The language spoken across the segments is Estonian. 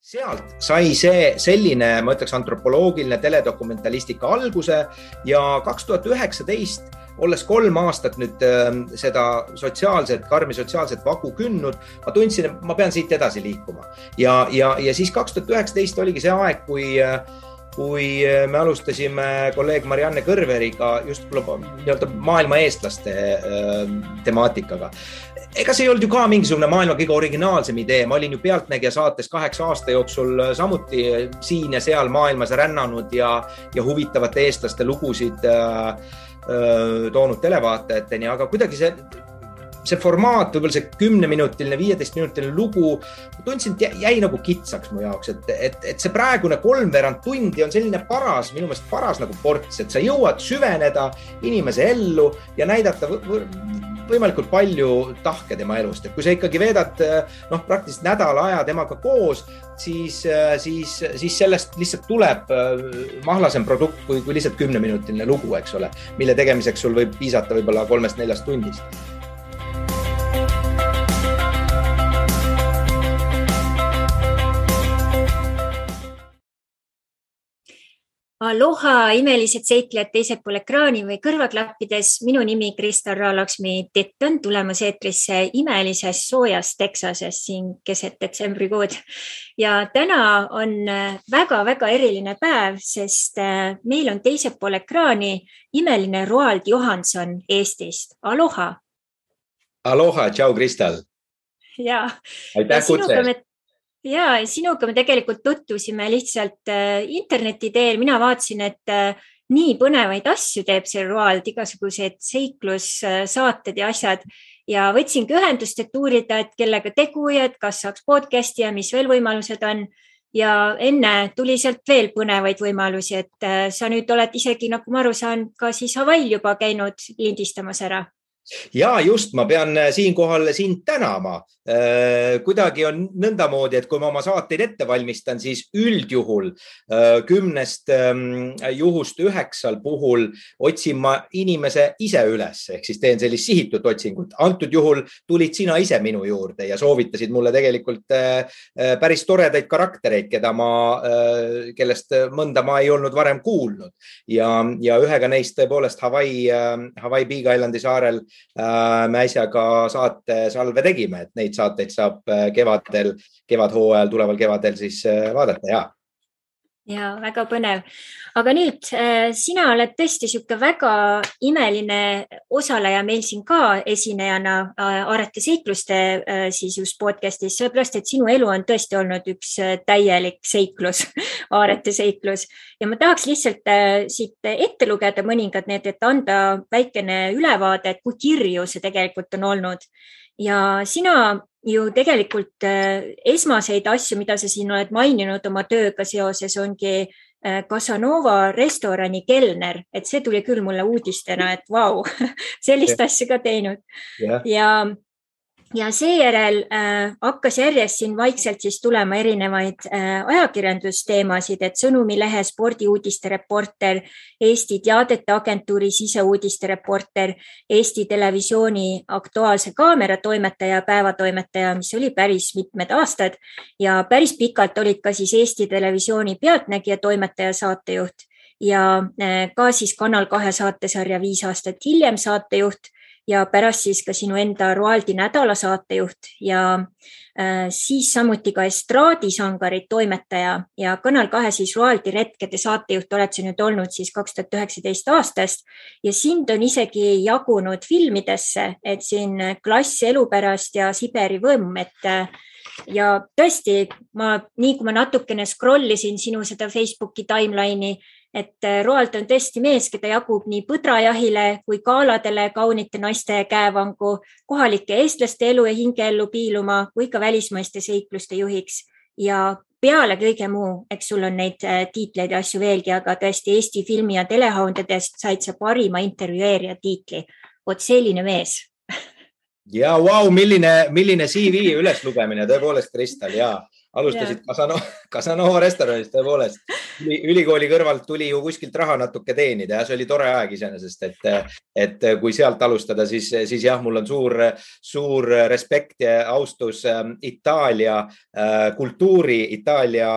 Sealt sai see selline, ma ütleks, antropoloogiline teledokumentalistika alguse ja 2019, olles 3 aastat nüüd seda karmi sotsiaalset vagu künnud, ma tundsin, et ma pean siit edasi liikuma. Ja siis 2019 oligi see aeg, kui me alustasime kolleeg Marianne Kõrveriga just maailma eestlaste temaatikaga. Ega see ei olnud ju ka mingisugune maailma kõige originaalsem idee. Ma olin ju Pealtnägija saates 8 aasta jooksul samuti siin ja seal maailmas rännanud ja huvitavate eestlaste lugusid toonud televaatajateni, aga kuidagi see formaat, võib-olla see 10-minutiline, 15-minutiline lugu, tundsin, et jäi nagu kitsaks mu jaoks, et see praegune 3/4 tundi on selline minu meelest paras nagu ports, et sa jõuad süveneda inimese ellu ja näidata võimalikult palju tahke tema elust. Et kui sa ikkagi veedad praktiliselt nädala aja temaga koos, siis sellest lihtsalt tuleb mahlasem produkt kui lihtsalt 10-minutiline lugu, eks ole, mille tegemiseks sul võib piisata võib-olla 3-4 tundist. Aloha, imelised seiklejad teisel pool ekraani või kõrvaklappides. Minu nimi Kristal Raalaksmi Tett on tulemas eetrisse imelises soojas Texases siin keset detsembrikuud. Ja täna on väga-väga eriline päev, sest meil on teisel pool ekraani imeline Roald Johansson Eestist. Aloha! Aloha, tšau Kristal! Ja, aitäh kutse! Ja sinuga me tegelikult tutvusime lihtsalt interneti teel. Mina vaatasin, et nii põnevaid asju teeb see Roald, igasugused seiklussaated ja asjad. Ja võtsingi ühendust, et uurida, et kellega tegu ja et kas saaks podcasti ja mis veel võimalused on. Ja enne tuli sealt veel põnevaid võimalusi, et sa nüüd oled isegi, nagu ma aru saan, ka siis Hawaii'l juba käinud lindistamas ära. Ja just, ma pean siinkohal sind tänama. Kuidagi on nõndamoodi, et kui ma oma saateid ette valmistan, siis üldjuhul 10 juhust 9 puhul otsin ma inimese ise üles, ehk siis teen sellist sihitud otsingut. Antud juhul tulid sina ise minu juurde ja soovitasid mulle tegelikult päris toredaid karaktereid, kellest mõnda ma ei olnud varem kuulnud. Ja ühega neist tõepoolest Hawaii Big Islandi saarel me äsjaga saate salve tegime, et neid saateid saab kevadhooajal, tuleval kevadel siis vaadata, Ja, väga põnev. Aga nüüd, sina oled tõesti siuke väga imeline osaleja meil siin ka esinejana Aarete seikluste siis just podcastis, sellepärast, et sinu elu on tõesti olnud üks täielik seiklus, Aarete seiklus. Ja ma tahaks lihtsalt siit ette lugeda mõningad need, et anda väikene ülevaade, et kui kirju see tegelikult on olnud. Ja sina ju tegelikult esmaseid asju, mida sa siin oled maininud oma tööga seoses, ongi Casanova restorani kelner, et see tuli küll mulle uudistena, et vau, sellist asja ka teinud. Ja seejärel hakkas järjest siin vaikselt siis tulema erinevaid ajakirjandusteemasid, et Sõnumilehe spordiuudiste reporter, Eesti Teadete Agentuuri siseuudiste reporter, Eesti Televisiooni Aktuaalse Kaamera toimetaja, päevatoimetaja, mis oli päris mitmed aastad ja päris pikalt olid ka siis Eesti Televisiooni Pealtnägija toimetaja saatejuht ja ka siis Kanal 2 saatesarja 5 aastat hiljem saatejuht ja pärast siis ka sinu enda Roaldi nädala saatejuht ja siis samuti ka estraadisangarid toimetaja ja Kanal 2 siis Roaldi retkede saatejuht oled sa nüüd olnud siis 2019 aastast ja sind on isegi jagunud filmidesse, et siin Klass elu pärast ja Siberi võmm, ja tõesti, nii kui ma natukene scrollisin sinu seda Facebooki timeline'i, et Roald on tõesti mees, keda jagub nii põdrajahile kui kaaladele kaunite naiste käevangu, kohalike eestlaste elu ja hingeellu piiluma kui ka välismaiste seikluste juhiks. Ja peale kõige muu, eks sul on neid tiitleid ja asju veelgi, aga tõesti Eesti filmi- ja telehoundedest said sa parima intervjueerija tiitli. Oot selline mees. Ja vau, milline CV üles lugemine, tõepoolest Kristal, ja alustasid Casanova restoranist, tõepoolest. ülikooli kõrvalt tuli ju kuskilt raha natuke teenida ja see oli tore aeg iseenesest, et kui sealt alustada, siis jah, mul on suur respekt ja austus Itaalia kultuuri, Itaalia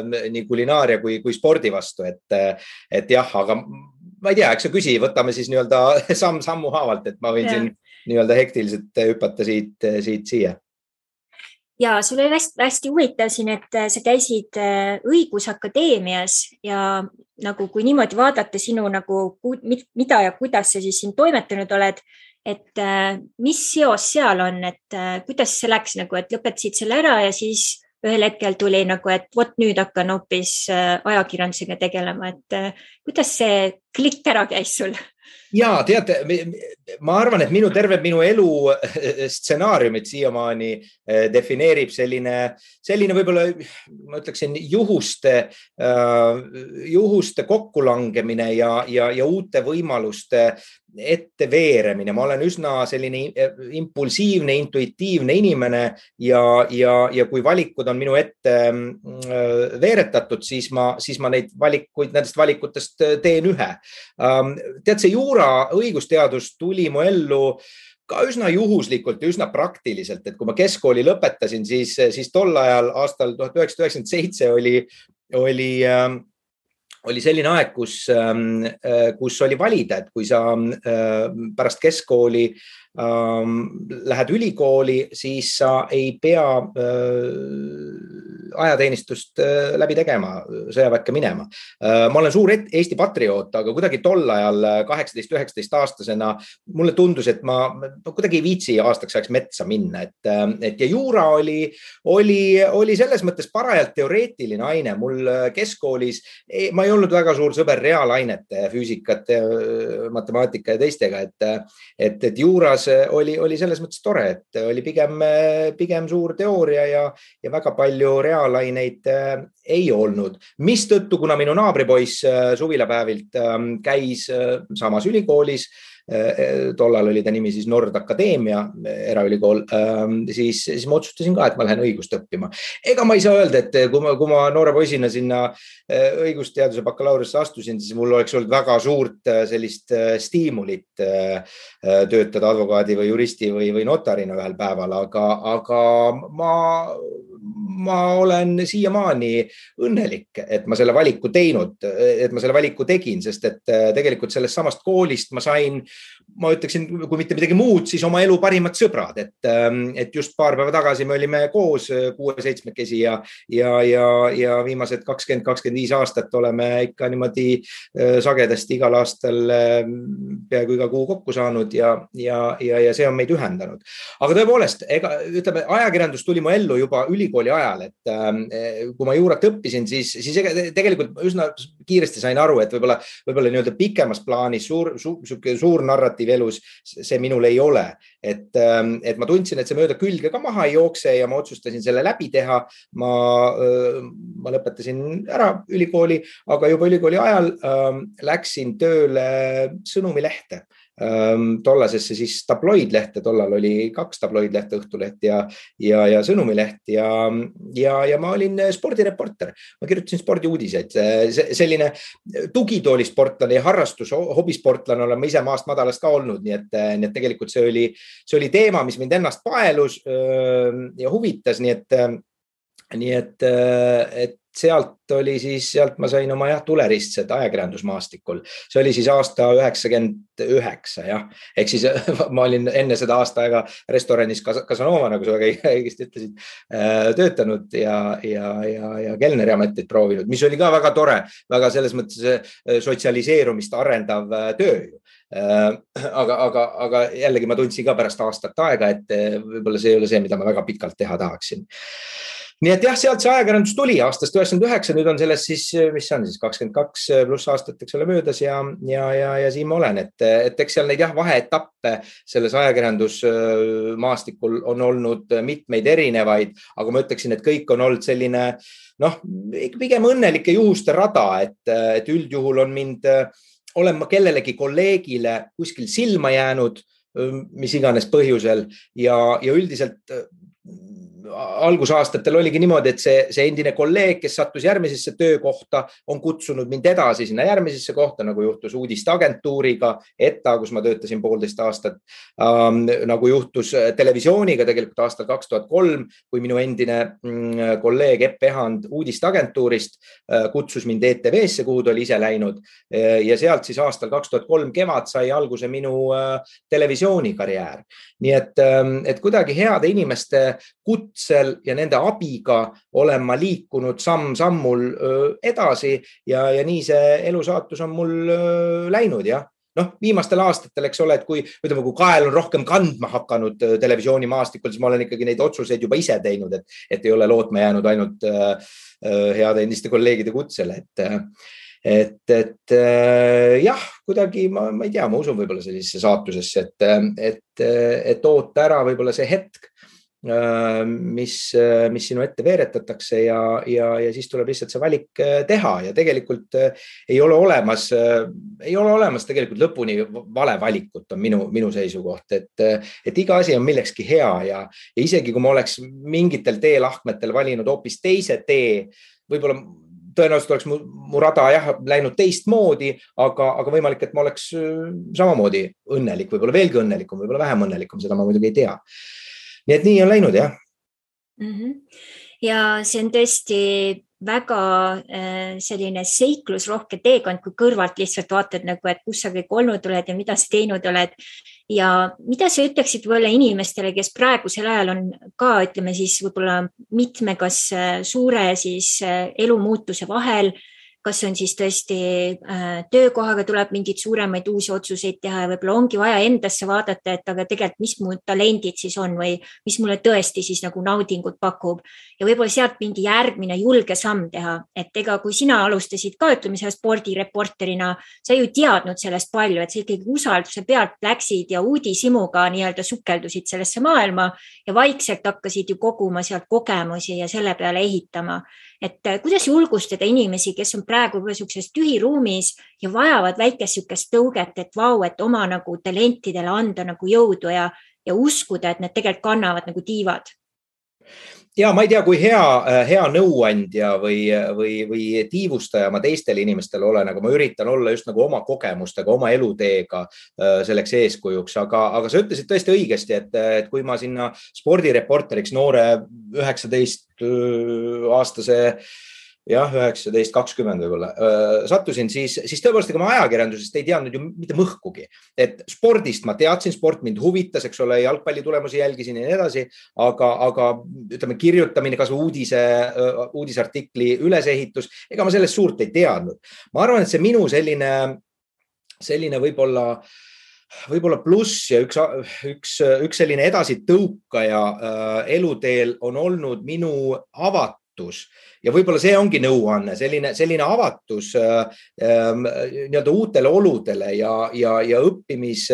nii kulinaaria kui spordi vastu, et jah, aga ma ei tea, eks sa küsi, võtame siis nii-öelda sammu haavalt, et ma võin siin nii-öelda hektiliselt hüpata siit siia. Ja sul oli hästi huvitav siin, et sa käisid õigusakadeemias ja nagu kui niimoodi vaadata sinu nagu mida ja kuidas sa siis siin toimetanud oled, et mis seos seal on, et kuidas see läks nagu, et lõpetasid selle ära ja siis ühel hetkel tuli nagu, et vot nüüd hakkan hoopis ajakirjandusega tegelema, et kuidas see klikk ära käis sul? Ja teate, ma arvan, et terve minu elu stsenaariumit siiamaani defineerib selline võib-olla, ma ütleksin, juhuste kokkulangemine ja uute võimaluste ette veeremine. Ma olen üsna selline impulsiivne, intuitiivne inimene ja kui valikud on minu ette veeretatud, siis ma nendest valikutest teen ühe. Tead, see juura õigusteadus tuli mu ellu ka üsna juhuslikult ja üsna praktiliselt, et kui ma keskkooli lõpetasin, siis tol ajal aastal 1997 oli selline aeg, kus oli valida, et kui sa pärast keskkooli lähed ülikooli, siis sa ei pea ajateenistust läbi tegema, sõjaväkke minema. Ma olen suur Eesti patrioot, aga kuidagi tol ajal 18-19 aastasena mulle tundus, et ma kuidagi ei viitsi aastaks ajaks metsa minna, et ja juura oli selles mõttes parajalt teoreetiline aine. Mul keskkoolis, ma ei olnud väga suur sõber reaalainete, füüsikat, matemaatika ja teistega, et juuras oli selles mõttes tore, et oli pigem suur teooria ja väga palju reaalaineid ei olnud. Mistõttu, kuna minu naabripoiss suvilapäevilt käis samas ülikoolis, tollal oli ta nimi siis Nord Akadeemia eraülikool, siis ma otsustasin ka, et ma lähen õigust õppima. Ega ma ei saa öelda, et kui ma noore poisina sinna õigusteaduse bakalaureusesse astusin, siis mul oleks olnud väga suurt sellist stiimulit töötada advokaadi või juristi või notarina ühel päeval, aga ma olen siiamaani õnnelik, et ma selle valiku tegin, sest et tegelikult sellest samast koolist ma sain, ma ütleksin, kui mitte midagi muud, siis oma elu parimad sõbrad, et just paar päeva tagasi me olime koos 6-7 ja viimased 20-25 aastat oleme ikka niimoodi sagedasti igal aastal peaaegu iga kuu kokku saanud ja see on meid ühendanud. Aga tõepoolest, ütleme, ajakirjandus tuli mu ellu juba ülikooli ajal, et kui ma juurat õppisin, siis tegelikult üsna kiiresti sain aru, et võib-olla nii-öelda pikemas plaanis suur narratiiv elus, see minul ei ole. Et ma tundsin, et see mööda külge ka maha ei jookse ja ma otsustasin selle läbi teha. Ma lõpetasin ära ülikooli, aga juba ülikooli ajal läksin tööle Sõnumilehte. Tollasesse siis tabloidlehte, tollal oli 2 tabloidlehte, Õhtuleht ja Sõnumileht ja ma olin spordireporter. Ma kirjutasin spordiuudiseid. Selline tugitoolisportlane ja hobisportlane olen ma ise maast madalast ka olnud, nii et tegelikult see oli teema, mis mind ennast paelus ja huvitas, nii et sealt ma sain oma tuleristsed ajakirjandusmaastikul. See oli siis aasta 99, jah. Ehk siis ma olin enne seda aasta aega restoranis Casanova, nagu sa väga õigesti ütlesid, töötanud ja kelneri ametit proovinud, mis oli ka väga tore, väga selles mõttes sotsialiseerumist arendav töö. Aga jällegi ma tundsin ka pärast aastat aega, et võib-olla see ei ole see, mida ma väga pikalt teha tahaksin. Nii et jah, sealt see ajakirjandus tuli aastast 99, nüüd on selles siis, mis see on siis 22 pluss aastat, eks ole, möödas ja siin ma olen, et eks seal neid vaheetappe selles ajakirjandusmaastikul on olnud mitmeid erinevaid, aga ma ütleksin, et kõik on olnud selline, pigem õnnelike juhuste rada, et üldjuhul olen ma kellelegi kolleegile kuskil silma jäänud, mis iganes põhjusel ja üldiselt algusaastatel oligi niimoodi, et see endine kolleeg, kes sattus järgmisesse töökohta, on kutsunud mind edasi sinna järgmisesse kohta, nagu juhtus uudisteagentuuriga, ETA, kus ma töötasin 1,5 aastat, nagu juhtus televisiooniga tegelikult aastal 2003, kui minu endine kolleeg Epp Ehand uudisteagentuurist kutsus mind ETV-sse, kuhu ta oli ise läinud ja sealt siis aastal 2003 kevad sai alguse minu televisioonikarjäär. Nii et kuidagi heade inimeste kutsel ja nende abiga olen ma liikunud samm-sammul edasi ja nii see elusaatus on mul läinud, jah. Noh, viimastel aastatel, eks ole, et kui kael on rohkem kandma hakanud televisioonimaastikul, siis ma olen ikkagi neid otsuseid juba ise teinud, et ei ole lootma jäänud ainult heade endiste kolleegide kutsele, et jah, kuidagi ma ei tea, ma usun võib-olla sellisesse saatusesse, et oota ära võib-olla see hetk, mis sinu ette veeretatakse ja siis tuleb lihtsalt see valik teha ja tegelikult ei ole olemas tegelikult lõpuni vale valikut on minu seisukoht, et iga asi on millekski hea ja isegi kui ma oleks mingitel teelahkmetel valinud hoopis teise tee, võib-olla tõenäoliselt oleks mu rada läinud teistmoodi, aga võimalik, et ma oleks samamoodi õnnelik, võib-olla veelgi õnnelikum, võib-olla vähem õnnelikum, seda ma muidugi ei tea. Nii et nii on läinud, jah. Ja see on tõesti väga selline seiklusrohke teekond, kui kõrvalt lihtsalt vaatad, et kus sa kõik olnud oled ja mida sa teinud oled. Ja mida sa ütleksid võib-olla inimestele, kes praegusel ajal on ka, ütleme siis võib-olla mitme kas suure siis elumuutuse vahel, kas on siis tõesti töökohaga tuleb mingid suuremaid uusi otsuseid teha ja võib-olla ongi vaja endasse vaadata, et aga tegelikult mis mu talendid siis on või mis mulle tõesti siis nagu naudingut pakub ja võib-olla sealt mingi järgmine julge samm teha, et ega kui sina alustasid ka, ütleme selle spordireporterina, sa ju teadnud sellest palju, et sa ikkagi usalduse pealt läksid ja uudishimuga nii-öelda sukeldusid sellesse maailma ja vaikselt hakkasid ju koguma sealt kogemusi ja selle peale ehitama. Et kuidas julgustada inimesi, kes on praegu sellises tühiruumis ja vajavad väikest sükest tõuget, et vau, et oma nagu talentidele anda nagu jõudu ja uskuda, et need tegelikult kannavad nagu tiivad? Ja ma ei tea, kui hea nõuandja või tiivustaja ma teistele inimestele olen, aga ma üritan olla just nagu oma kogemustega, oma eluteega selleks eeskujuks, aga sa ütlesid tõesti õigesti, et kui ma sinna spordireporteriks noore 19-aastase 19-20 võib-olla sattusin, siis tõepoolest, ega ma ajakirjandusest ei teadnud ju mitte mõhkugi. Et spordist ma teadsin, sport mind huvitas, eks ole, jalgpalli tulemusi jälgisin ja nii edasi, aga ütleme, kirjutamine, kas uudisartikli ülesehitus, ega ma sellest suurt ei teadnud. Ma arvan, et see minu selline võib-olla pluss ja üks selline edasi tõukaja eluteel on olnud minu avatus. Ja võib-olla see ongi nõuanne, selline avatus nii-öelda uutele oludele ja õppimis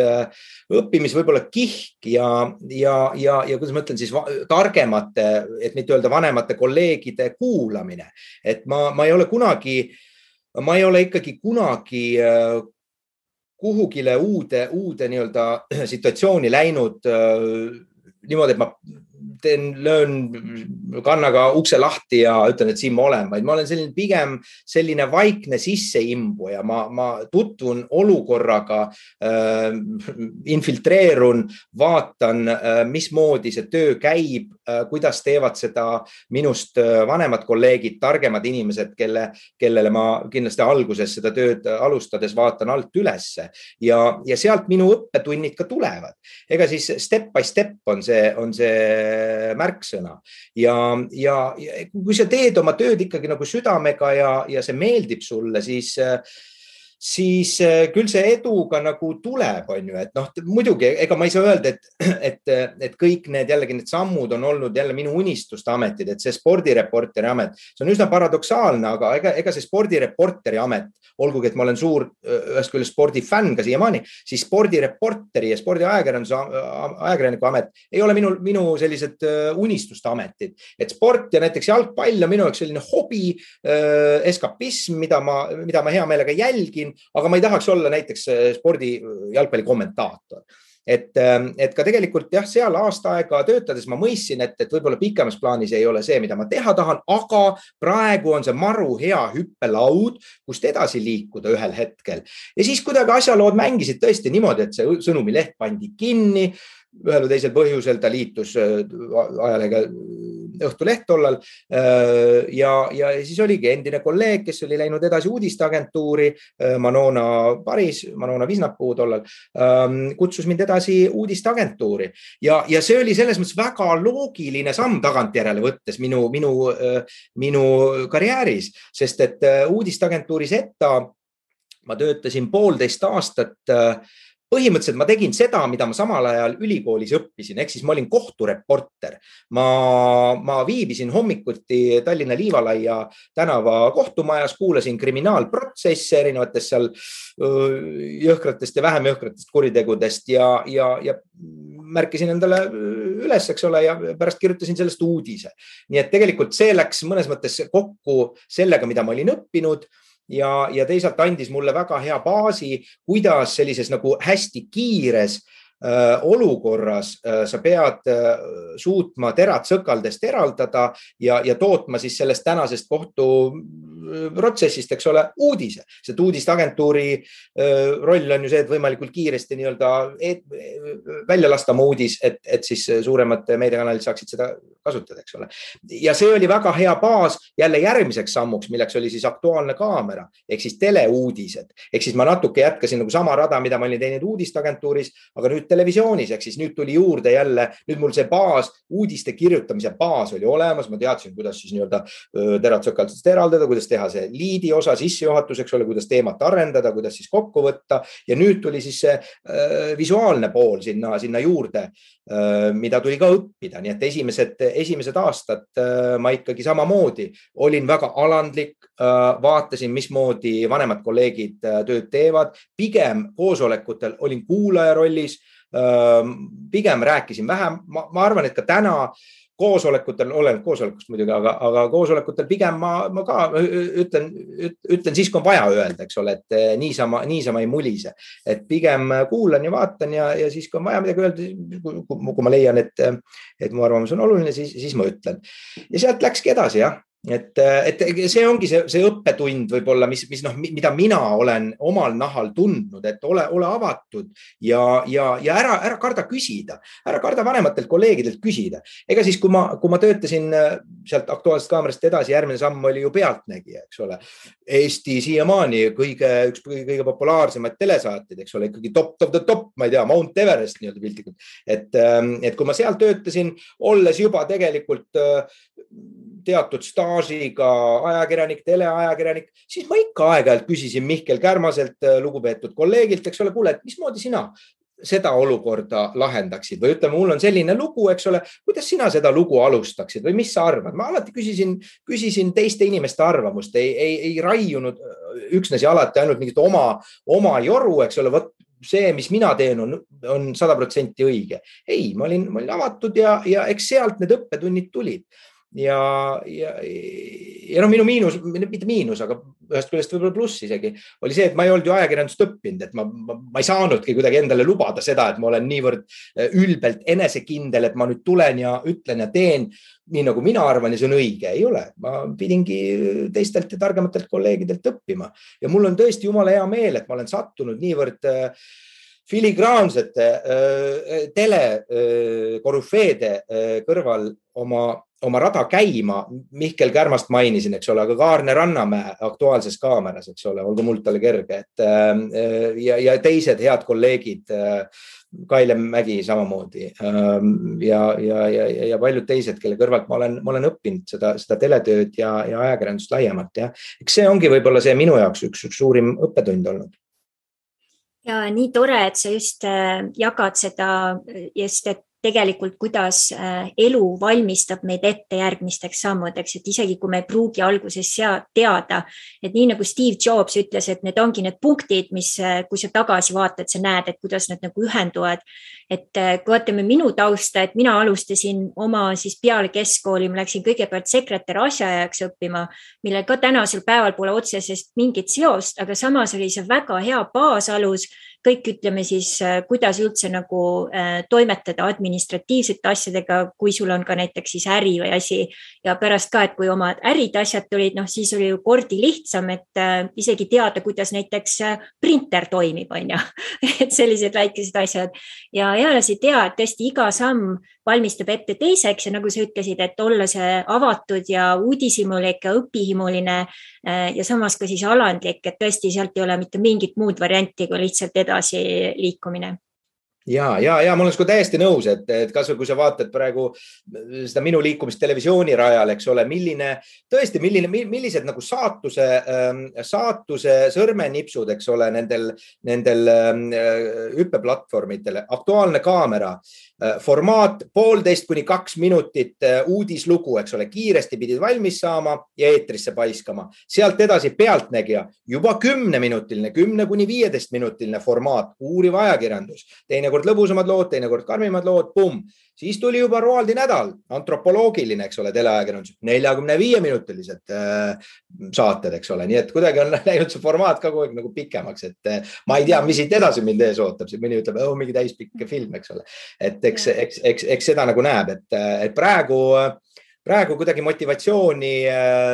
võib-olla kihk ja kuidas ma ütlen siis targemate, et mitte öelda vanemate kolleegide kuulamine. Et ma ei ole ikkagi kunagi kuhugile uude nii-öelda situatsiooni läinud niimoodi, et ma löön kannaga ukse lahti ja ütlen, et siin ma olen, vaid ma olen pigem selline vaikne sisseimbu ja ma tutvun olukorraga, infiltreerun, vaatan, mismoodi see töö käib, kuidas teevad seda minust vanemad kolleegid, targemad inimesed, kellele ma kindlasti alguses seda tööd alustades vaatan alt ülesse ja sealt minu õppetunnid ka tulevad. Ega siis step by step on see märksõna ja kui sa teed oma tööd ikkagi nagu südamega ja see meeldib sulle, siis küll see eduga nagu tuleb, on ju, et muidugi, ega ma ei saa öelda, et kõik need sammud on olnud jälle minu unistuste ametid, et see spordireporteri amet, see on üsna paradoksaalne, aga ega see spordireporteri amet, olgugi, et ma olen suur ühest küljest spordifänn ka siiamaani, siis spordireporteri ja spordiajakirjaniku amet ei ole minu sellised unistuste ametid, et sport ja näiteks jalgpall on minu jaoks selline hobi, eskapism, mida ma hea meelega jälgin, aga ma ei tahaks olla näiteks spordi jalgpalli kommentaator. et ka tegelikult jah, seal aasta aega töötades ma mõistsin, et võib-olla pikemas plaanis ei ole see, mida ma teha tahan, aga praegu on see maru hea hüppelaud, kust edasi liikuda ühel hetkel. Ja siis kuidagi asjalood mängisid tõesti niimoodi, et see sõnumileht pandi kinni, ühel või teisel põhjusel ta liitus ajalehega Õhtuleht tollal ja siis oligi endine kolleeg, kes oli läinud edasi uudisteagentuuri, Manona Visnapuu tollal, kutsus mind edasi uudisteagentuuri ja see oli selles mõttes väga loogiline samm tagantjärele võttes minu karjääris, sest et uudisteagentuuris ETA ma töötasin 1,5 aastat. Põhimõtteliselt ma tegin seda, mida ma samal ajal ülikoolis õppisin, ehk siis ma olin kohtureporter. Ma viibisin hommikuti Tallinna Liivalaia tänava kohtumajas, kuulasin kriminaalprotsesse erinevatest seal jõhkratest ja vähem jõhkratest kuritegudest ja märkisin endale üles, eks ole, ja pärast kirjutasin sellest uudise. Nii et tegelikult see läks mõnes mõttes kokku sellega, mida ma olin õppinud. Ja teisalt andis mulle väga hea baasi, kuidas sellises nagu hästi kiires olukorras sa pead suutma terad sõkaldest eraldada ja tootma siis sellest tänasest kohtuprotsessist, eks ole, uudise. Sest uudisteagentuuri roll on ju see, et võimalikult kiiresti nii-öelda välja lasta oma uudis, et siis suuremad meediakanalid saaksid seda kasutada, eks ole. Ja see oli väga hea baas jälle järgmiseks sammuks, milleks oli siis Aktuaalne kaamera, ehk siis teleuudised. Ehk siis ma natuke jätkasin nagu sama rada, mida ma olin teinud uudisteagentuuris, aga nüüd televisioonis, ehk siis nüüd tuli juurde jälle, nüüd mul see baas, uudiste kirjutamise baas oli olemas, ma teadsin, kuidas siis nii-öelda terad sõkaldest eraldada, kuidas teha see liidi osa sissejuhatus, eks ole, kuidas teemat arendada, kuidas siis kokku võtta ja nüüd tuli siis see visuaalne pool sinna juurde, mida tuli ka õppida, nii et esimesed aastad ma ikkagi samamoodi olin väga alandlik, vaatasin, mismoodi vanemad kolleegid tööd teevad, pigem koosolekutel olin kuulaja rollis, pigem rääkisin vähem, ma arvan, et ka täna koosolekutel, olen koosolekust muidugi, aga koosolekutel pigem ma ka ütlen siis, kui on vaja öelda, eks ole, et niisama ei mulise, et pigem kuulan ja vaatan ja siis, kui on vaja midagi öelda, kui ma leian, et mu arvamus on oluline, siis ma ütlen. Ja sealt läkski edasi, jah. Et see ongi see õppetund võib-olla, mida mina olen omal nahal tundnud, et ole avatud ja ära karda küsida, ära karda vanematelt kolleegidelt küsida. Ega siis, kui ma töötasin sealt Aktuaalsest kaamerast edasi, järgmine samm oli ju Pealtnägija, eks ole. Eesti siiamaani üks kõige populaarsemaid telesaateid, eks ole, ikkagi top of the top, ma ei tea, Mount Everest nii-öelda piltlikult. Et kui ma seal töötasin, olles juba tegelikult teatud staažiga ajakirjanik, teleajakirjanik, siis ma ikka aeg-ajalt küsisin Mihkel Kärmaselt, lugupeetud kolleegilt, eks ole, kuule, et mismoodi sina seda olukorda lahendaksid või ütleme, mul on selline lugu, eks ole, kuidas sina seda lugu alustaksid või mis sa arvad? Ma alati küsisin teiste inimeste arvamust, ei raiunud üksnes ja alati ainult mingit oma joru, eks ole, võt see, mis mina teen, on 100% õige. Ei, ma olin avatud ja eks sealt need õppetunnid tulid. Ja minu miinus, mitte miinus, aga ühest küljest võib-olla pluss isegi, oli see, et ma ei olnud ju ajakirjandust õppinud, et ma ei saanudki kuidagi endale lubada seda, et ma olen niivõrd ülbelt enesekindel, et ma nüüd tulen ja ütlen ja teen nii, nagu mina arvan ja see on õige. Ei ole. Ma pidingi teistelt ja targematelt kolleegidelt õppima. Ja mul on tõesti jumala hea meel, et ma olen sattunud niivõrd filigraansete telekorüfeede kõrval oma rada käima. Mihkel Kärmast mainisin, eks ole, aga Kaarne Rannamäe Aktuaalses kaameras, eks ole, olgu muld talle kerge. Ja teised head kolleegid, Kaile Mägi samamoodi ja paljud teised, kelle kõrvalt ma olen õppinud seda teletööd ja ajakirjandust laiemalt. Ja. Eks see ongi võib-olla see minu jaoks üks suurim õppetund olnud. Ja nii tore, et sa just jagad seda, et tegelikult kuidas elu valmistab meid ette järgmisteks sammudeks, et isegi kui me ei pruugi alguses teada, et nii nagu Steve Jobs ütles, et need ongi need punktid, mis kui sa tagasi vaatad, sa näed, et kuidas nad nagu ühenduvad. Et kui vaatame minu tausta, et mina alustasin oma siis peale keskkooli, ma läksin kõigepealt sekretär asjaajaks õppima, mille ka tänasel päeval pole otsesest mingit seost, aga samas oli see väga hea baasalus, kõik ütleme siis, kuidas üldse nagu toimetada administratiivsete asjadega, kui sul on ka näiteks siis äri või asi ja pärast ka, et kui oma ärid asjad tulid, noh siis oli ju kordi lihtsam, et isegi teada, kuidas näiteks printer toimib, on ju, et sellised väikesed asjad ja eales ei tea, et tõesti iga samm valmistab ette teiseks ja nagu sa ütlesid, et olla see avatud ja uudishimulik ja õpihimuline ja samas ka siis alandlik, et tõesti sealt ei ole mitte mingit muud varianti kui lihtsalt edasi liikumine. Ja ma olen täiesti nõus, et kas või kui sa vaatad praegu seda minu liikumist televisiooni rajal, eks ole, millised nagu saatuse sõrmenipsud, eks ole, nendel hüppeplatvormidele, Aktuaalne kaamera, formaat 1,5 kuni 2 minutit uudislugu, eks ole, kiiresti pidid valmis saama ja eetrisse paiskama. Sealt edasi Pealtnägija, juba 10-minutiline, 10 kuni 15-minutiline formaat, uuriv ajakirjandus, teinekord lõbusamad lood, teinekord karmimad lood, Siis tuli juba Roaldi nädal, antropoloogiline, eks ole, teleajakirjandus, 45-minutilised saated, eks ole. Nii et kuidagi on läinud see formaat ka kogu aeg nagu pikemaks, et ma ei tea, mis siit edasi mind ees ootab. Mõni ütleb, mingi täispikk film, eks ole. Et eks seda nagu näeb, et praegu kuidagi motivatsiooni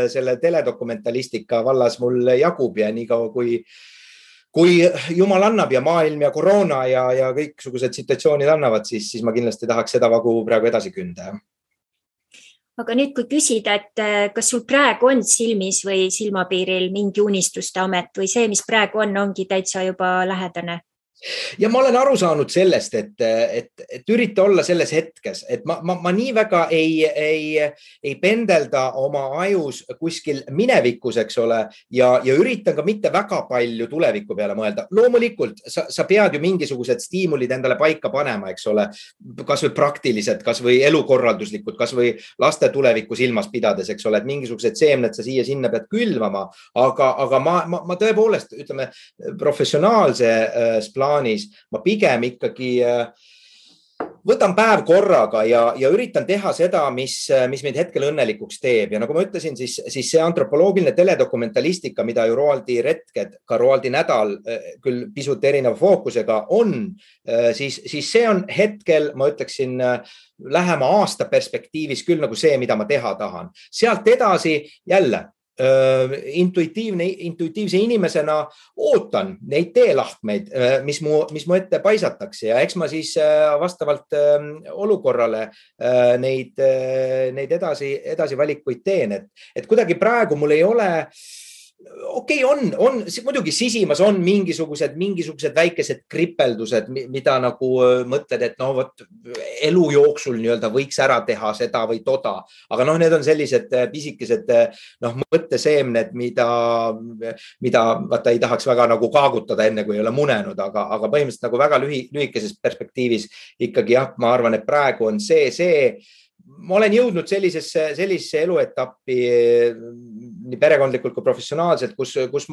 selle teledokumentalistika vallas mul jagub ja nii kaua kui jumal annab ja maailm ja koroona ja kõiksugused situatsioonid annavad, siis ma kindlasti tahaks seda vagu praegu edasi künda. Aga nüüd, kui küsida, et kas sul praegu on silmis või silmapiiril mingi unistuste amet või see, mis praegu ongi täitsa juba lähedane? Ja ma olen aru saanud sellest, et ürita olla selles hetkes, et ma nii väga ei pendelda oma ajus kuskil minevikus, eks ole, ja üritan ka mitte väga palju tuleviku peale mõelda. Loomulikult sa pead ju mingisugused stiimulid endale paika panema, eks ole, kas või praktiliselt, kas või elukorralduslikud, kas või laste tulevikku silmas pidades, eks ole, et mingisugused seemned sa siia-sinna pead külvama, aga ma tõepoolest, ütleme, professionaalses plaanis ma pigem ikkagi võtan päev korraga ja üritan teha seda, mis meid hetkel õnnelikuks teeb. Ja nagu ma ütlesin, siis see antropoloogiline teledokumentalistika, mida ju Roaldi retked, ka Roaldi nädal küll pisut erineva fookusega on, siis see on hetkel, ma ütleksin, lähema aasta perspektiivis küll nagu see, mida ma teha tahan. Sealt edasi jälle intuitiivse inimesena ootan neid teelahkmeid, mis mu ette paisatakse ja eks ma siis vastavalt olukorrale neid edasi valikuid teen, et kuidagi praegu mul ei ole okei, on muidugi sisimas on mingisugused väikesed kripeldused, mida nagu mõtled, et elu jooksul nii-öelda võiks ära teha seda või toda, aga need on sellised pisikesed mõtteseemned, mida vaata ei tahaks väga nagu kaagutada enne, kui ei ole munenud, aga põhimõtteliselt nagu väga lühikeses perspektiivis ikkagi jah, ma arvan, et praegu on see ma olen jõudnud sellisesse eluetappi nii perekondlikult kui professionaalselt, kus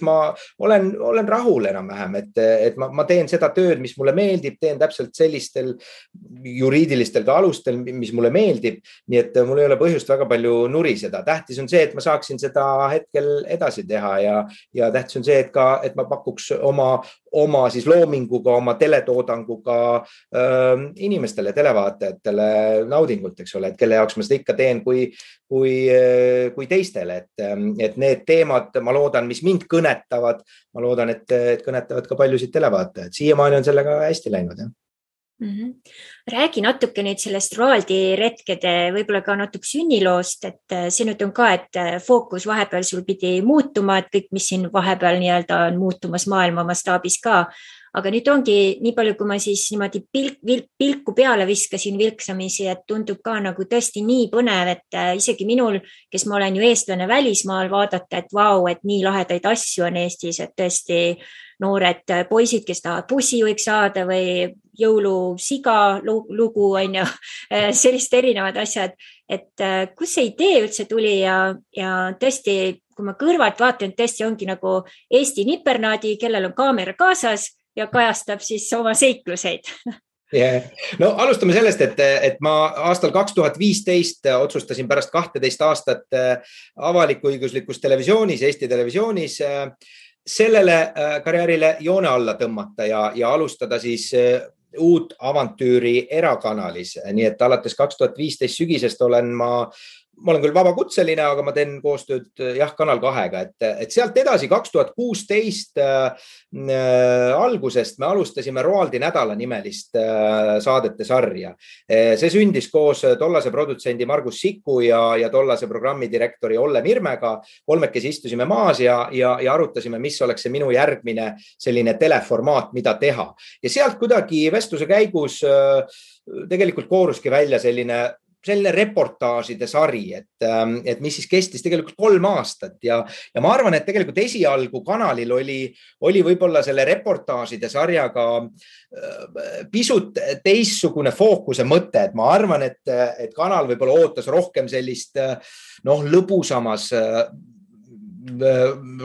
ma olen rahul enam-vähem, et ma teen seda tööd, mis mulle meeldib, teen täpselt sellistel juriidilistel ka alustel, mis mulle meeldib, nii et mul ei ole põhjust väga palju nuriseda. Tähtis on see, et ma saaksin seda hetkel edasi teha ja tähtis on see, et ma pakuks oma siis loominguga, oma teletoodanguga inimestele, televaatajatele naudingut, eks ole, et kelle jaoks ma seda ikka teen kui teistele, et need teemad, ma loodan, mis mind kõnetavad, ma loodan, et kõnetavad ka paljusid televaatajad. Siiamaani on sellega hästi läinud, jah. Räägi natuke nüüd sellest Roaldi retkede, võib-olla ka natuke sünniloost, et see nüüd on ka, et fookus vahepeal sul pidi muutuma, et kõik, mis siin vahepeal nii-öelda on muutumas maailma mastaabis ka, aga nüüd ongi nii palju, kui ma siis niimoodi pilku peale viskasin vilksamisi, et tundub ka nagu tõesti nii põnev, et isegi minul, kes ma olen ju eestlane välismaal, vaadata, et vau, et nii lahedaid asju on Eestis, et tõesti noored poisid, kes tahavad bussijuhiks saada või jõulusiga lugu, on ju, sellist erinevad asjad, et kus see idee üldse tuli ja tõesti, kui ma kõrvalt vaatan, tõesti ongi nagu Eesti nipernaadi, kellel on kaamera kaasas ja kajastab siis oma seikluseid. Yeah. No alustame sellest, et ma aastal 2015 otsustasin pärast 12 aastat avaliku-õiguslikus televisioonis, Eesti televisioonis sellele karjäärile joone alla tõmmata ja alustada siis uut avantüüri erakanalis. Nii et alates 2015 sügisest olen ma olen küll vabakutseline, aga ma teen koostööd Kanal 2-ga, et sealt edasi 2016 algusest me alustasime Roaldi nädala nimelist saadete sarja. See sündis koos tollase produtsendi Margus Siku ja tollase programmidirektori Olle Mirmega. Kolmekesi istusime maas ja arutasime, mis oleks see minu järgmine selline teleformaat, mida teha. Ja sealt kuidagi vestluse käigus tegelikult kooruski välja selline reportaažide sari, et mis siis kestis tegelikult 3 aastat ja ma arvan, et tegelikult esialgu kanalil oli võib-olla selle reportaažide sarjaga pisut teistsugune fookuse mõte, et ma arvan, et kanal võib-olla ootas rohkem sellist lõbusamas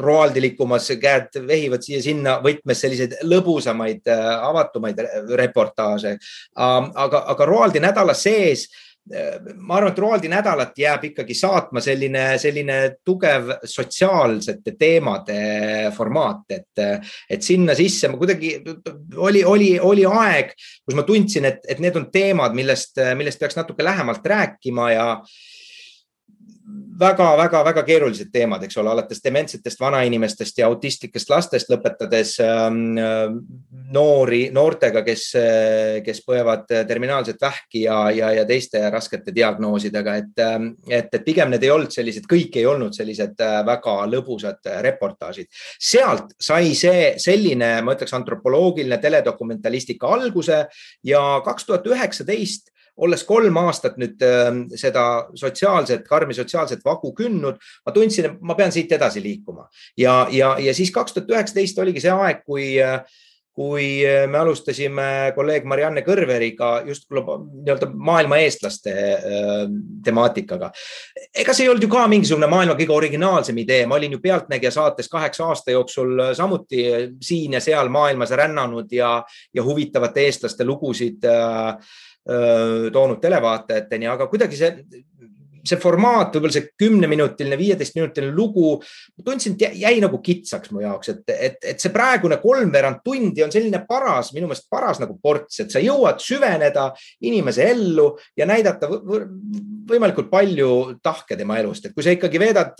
roaldilikumas, käed vehivad siia sinna võtmes selliseid lõbusamaid, avatumaid reportaaže. Aga Roaldi nädala sees ma arvan, et Roaldi nädalat jääb ikkagi saatma selline tugev sotsiaalsete teemade formaat, et sinna sisse ma kuidagi oli aeg, kus ma tundsin, et need on teemad, millest peaks natuke lähemalt rääkima ja väga keerulised teemad, eks ole, alates dementsetest vanainimestest ja autistlikest lastest lõpetades noortega, kes põevad terminaalset vähki ja teiste raskete diagnoosidega, et pigem need ei olnud sellised, kõik ei olnud sellised väga lõbusad reportaažid. Sealt sai selline, ma ütleks, antropoloogiline teledokumentalistika alguse ja 2019 olles 3 aastat nüüd seda karmi sotsiaalset vagu kündnud, ma tundsin, et ma pean siit edasi liikuma. Ja siis 2019 oligi see aeg, kui me alustasime kolleeg Marianne Kõrveriga just maailma eestlaste temaatikaga. Ega see ei olnud ju ka mingisugune maailma kõige originaalsem idee. Ma olin ju Pealtnägija saates 8 aasta jooksul samuti siin ja seal maailmas rännanud ja huvitavate eestlaste lugusid toonud televaatajateni, aga kuidagi see formaat, võib-olla see 10-minutiline, 15-minutiline lugu, ma tundsin, et jäi nagu kitsaks mu jaoks, et see praegune 3/4 tundi on selline minu meelest paras nagu ports, et sa jõuad süveneda inimese ellu ja näidata võimalikult palju tahke tema elust, et kui sa ikkagi veedad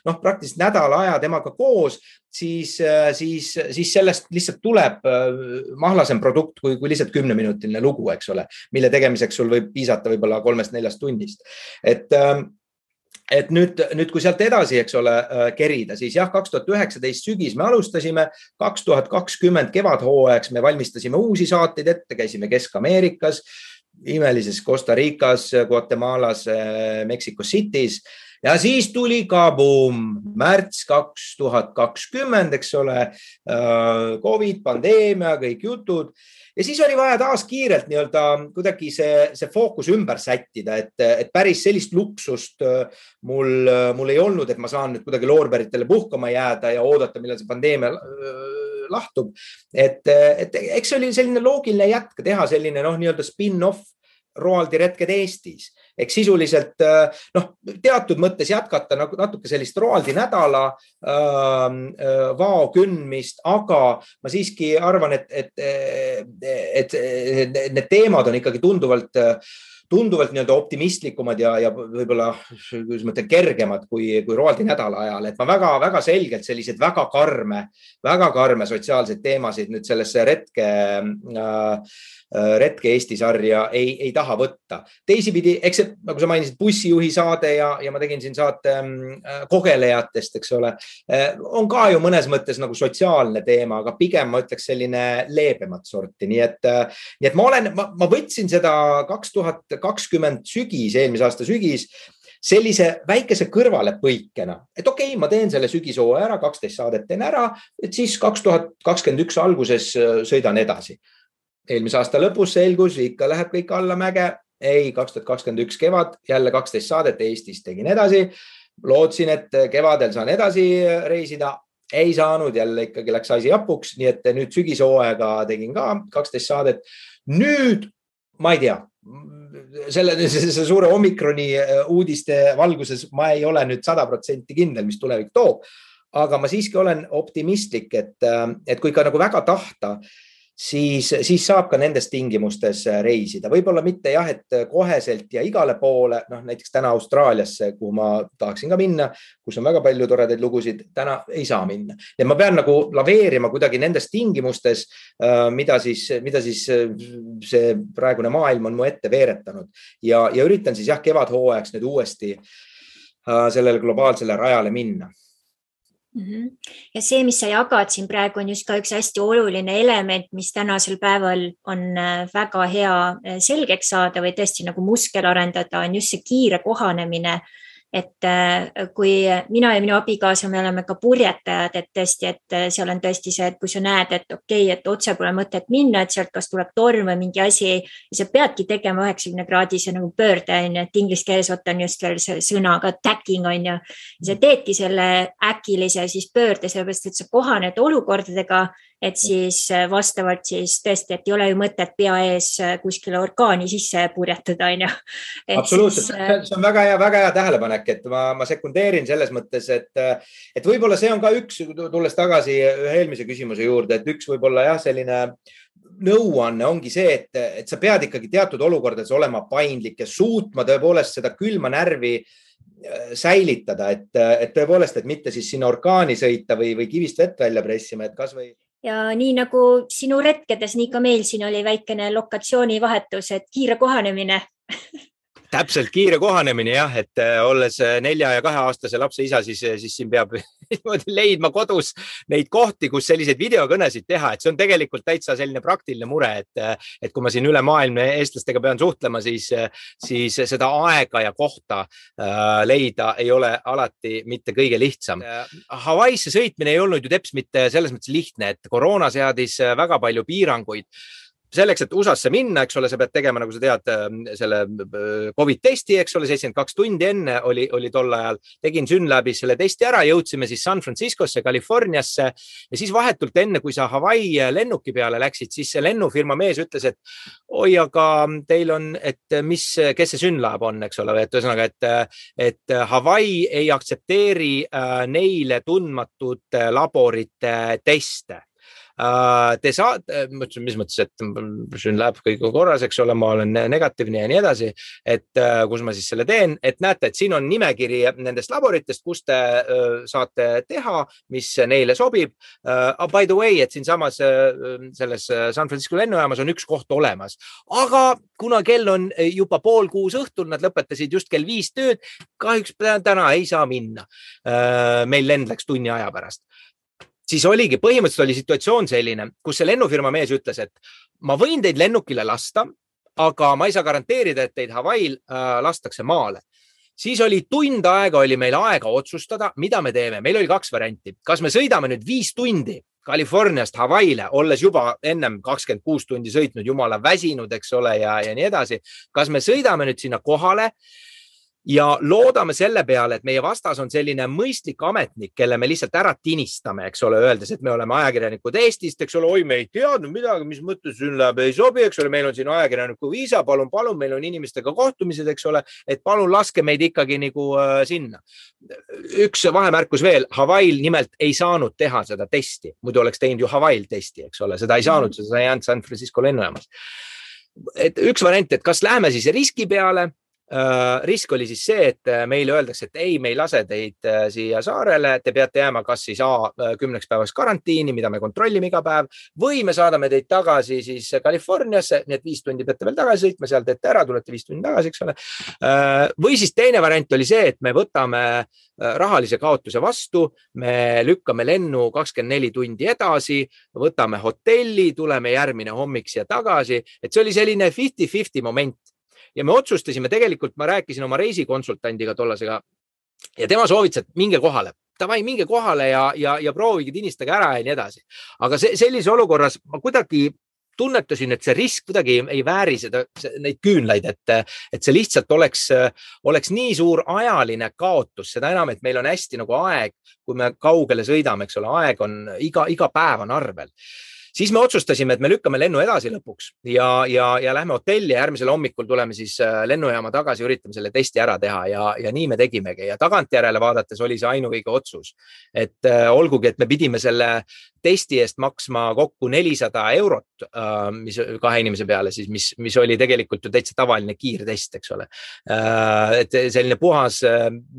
praktiliselt nädala aja temaga koos, siis sellest lihtsalt tuleb mahlasem produkt kui lihtsalt 10-minutiline lugu, eks ole, mille tegemiseks sul võib piisata võib-olla 3-4 tunnist. Et nüüd, kui sealt edasi, eks ole, kerida, siis 2019 sügis me alustasime, 2020 kevadhooajaks me valmistasime uusi saateid ette, käisime Kesk-Ameerikas, imelises Costa Ricas, Guatemalas, Mexico City's. Ja siis tuli kaboom, märts 2020, eks ole, COVID, pandeemia, kõik jutud. Ja siis oli vaja taas kiirelt kuidagi see fookus ümber sättida, et päris sellist luksust mul ei olnud, et ma saan nüüd kuidagi loorberitele puhkama jääda ja oodata, millal see pandeemia lahtub. Et eks see oli selline loogiline jätk teha selline spin-off Roaldi retked Eestis. Ehk sisuliselt teatud mõttes jätkata natuke sellist Roaldi nädala vao kündmist, aga ma siiski arvan, et need teemad on ikkagi tunduvalt optimistlikumad ja võib-olla kergemad kui Roaldi nädala ajal. Et ma väga selgelt sellised väga karme sotsiaalseid teemasid nüüd sellesse retke Eesti sarja ei taha võtta. Teisipidi, eks see, nagu sa mainisid, bussijuhi saade ja ma tegin siin saate kogelejatest, eks ole, on ka ju mõnes mõttes nagu sotsiaalne teema, aga pigem ma ütleks selline leebemat sorti. Nii et ma võtsin seda 2020 sügis, eelmise aasta sügis, sellise väikese kõrvalepõikena, et okei, ma teen selle sügishooaja ära, 12 saadet teen ära, et siis 2021 alguses sõidan edasi. Eelmise aasta lõpus selgus, ikka läheb kõik alla mäge. Ei, 2021 kevad, jälle 12 saadet Eestis tegin edasi. Lootsin, et kevadel saan edasi reisida. Ei saanud, jälle ikkagi läks asi japuks. Nii et nüüd sügishooaega tegin ka 12 saadet. Nüüd, ma ei tea, see suure omikroni uudiste valguses ma ei ole nüüd 100% kindel, mis tulevik toob. aga ma siiski olen optimistlik, et kui ka nagu väga tahta, siis saab ka nendes tingimustes reisida. Võib-olla mitte jah, et koheselt ja igale poole, näiteks täna Austraaliasse, kuhu ma tahaksin ka minna, kus on väga palju toredaid lugusid, täna ei saa minna. Ja ma pean nagu laveerima kuidagi nendes tingimustes, mida siis see praegune maailm on mu ette veeretanud. Ja üritan siis jah, kevadhooajaks nüüd uuesti sellele globaalsele rajale minna. Ja see, mis sa jagad siin praegu, on just ka üks hästi oluline element, mis tänasel päeval on väga hea selgeks saada või tõesti nagu muskel arendada, on just see kiire kohanemine. Et kui mina ja minu abikaasa, me oleme ka purjetajad, et tõesti, et seal on tõesti see, et kui sa näed, et okei, et otse pole mõtet minna, et sealt kas tuleb torm või mingi asi ja sa peadki tegema 90-kraadise nagu pöörde, et inglise keeles on just veel see sõnaga tacking on ju. Ja sa teedki selle äkilise siis pöörde, sellepärast, et sa kohaned olukordadega, et siis vastavalt siis tõesti, et ei ole ju mõtet pea ees kuskile orkaani sisse purjetada, on ju. Absoluutselt, see on väga hea tähelepanek, et ma sekundeerin selles mõttes, et võib-olla see on ka üks, tulles tagasi ühe eelmise küsimuse juurde, et üks võib-olla jah, selline nõuanne ongi see, et sa pead ikkagi teatud olukordades olema paindlik ja suutma tõepoolest seda külma närvi säilitada, et tõepoolest, et mitte siis sinna orkaani sõita või kivist vett välja pressima, et kas või ja nii nagu sinu retkedes, nii ka meil siin oli väikene lokatsioonivahetus, et kiire kohanemine. Täpselt kiire kohanemine jah, et olles 4- ja 2-aastase lapse isa, siis siin peab leidma kodus neid kohti, kus selliseid videokõnesid teha, et see on tegelikult täitsa selline praktiline mure, et kui ma siin üle maailma eestlastega pean suhtlema, siis seda aega ja kohta leida ei ole alati mitte kõige lihtsam. Hawaiisse sõitmine ei olnud ju teps mitte selles mõttes lihtne, et koroona seadis väga palju piiranguid. Selleks, et USA-sse minna, eks ole, sa pead tegema, nagu sa tead, selle COVID-testi, eks ole, 72 tundi enne oli tol ajal. Tegin Synlabis selle testi ära, jõudsime siis San Franciscosse, Californiasse ja siis vahetult enne, kui sa Hawaii lennuki peale läksid, siis see lennufirma mees ütles, et oi, aga teil on, et kes see Synlab on, eks ole, et ühesõnaga, et Hawaii ei aktsepteeri neile tundmatud laborite teste. Te saate, mis mõttes, et Synlab kõik korras, eks ole, ma olen negatiivne ja nii edasi, et kus ma siis selle teen, et näete, et siin on nimekiri nendest laboritest, kus te saate teha, mis neile sobib. By the way, et siin samas selles San Francisco lennujaamas on üks koht olemas, aga kuna kell on juba 5:30 õhtul, nad lõpetasid just kell 5 tööd, kahjuks täna ei saa minna. Meil lend läks tunni aja pärast. Siis oligi, põhimõtteliselt oli situatsioon selline, kus see lennufirma mees ütles, et ma võin teid lennukile lasta, aga ma ei saa garanteerida, et teid Hawaii'l lastakse maale. Siis oli tund aega, oli meil aega otsustada, mida me teeme. Meil oli 2 varianti. Kas me sõidame nüüd 5 tundi Californiast Hawaii'le, olles juba ennem 26 tundi sõitnud, jumala väsinud, eks ole, ja nii edasi. Kas me sõidame nüüd sinna kohale ja loodame selle peale, et meie vastas on selline mõistlik ametnik, kelle me lihtsalt ära tinistame, eks ole, öeldes, et me oleme ajakirjanikud Eestist, eks ole, oi, me ei teadnud midagi, mis mõttes Synlab ei sobi, eks ole, meil on siin ajakirjaniku viisa, palun, meil on inimestega kohtumised, eks ole, et palun laske meid ikkagi nagu sinna. Üks vahemärkus veel, Hawaii'l nimelt ei saanud teha seda testi, muidu oleks teinud ju Hawaii'l testi, eks ole, seda ei saanud, seda ei jäänud San Francisco lennujaamas. Et üks variant, et kas läheme siis riski peale. Risk oli siis see, et meile öeldakse, et ei, me ei lase teid siia saarele, te peate jääma kas siis 10 päevaks karantiini, mida me kontrollime iga päev, või me saadame teid tagasi siis Californiasse, nii et 5 tundi peate veel tagasi sõitma, seal teete ära, tulete 5 tundi tagasi, eks ole. Või siis teine variant oli see, et me võtame rahalise kaotuse vastu, me lükkame lennu 24 tundi edasi, võtame hotelli, tuleme järgmine hommik siia tagasi, et see oli selline 50-50 moment. Ja me otsustasime tegelikult, ma rääkisin oma reisikonsultandiga tollasega ja tema soovitas, et minge kohale. Tavai, minge kohale ja proovige tinistage ära ja nii edasi. Aga sellise olukorras ma kuidagi tunnetasin, et see risk kuidagi ei vääri neid küünlaid, et see lihtsalt oleks nii suur ajaline kaotus, seda enam, et meil on hästi nagu aeg, kui me kaugele sõidame, eks ole, aeg on iga päev on arvel. siis me otsustasime, et me lükkame lennu edasi lõpuks ja lähme hotelli ja järgmisel hommikul tuleme siis lennujaama tagasi, üritame selle testi ära teha ja nii me tegimegi ja tagantjärele vaadates oli see ainuõige otsus. Et olgugi, et me pidime selle testi eest maksma kokku 400 €, mis 2 inimese peale siis, mis oli tegelikult ju täitsa tavaline kiirtest, eks ole. Et selline puhas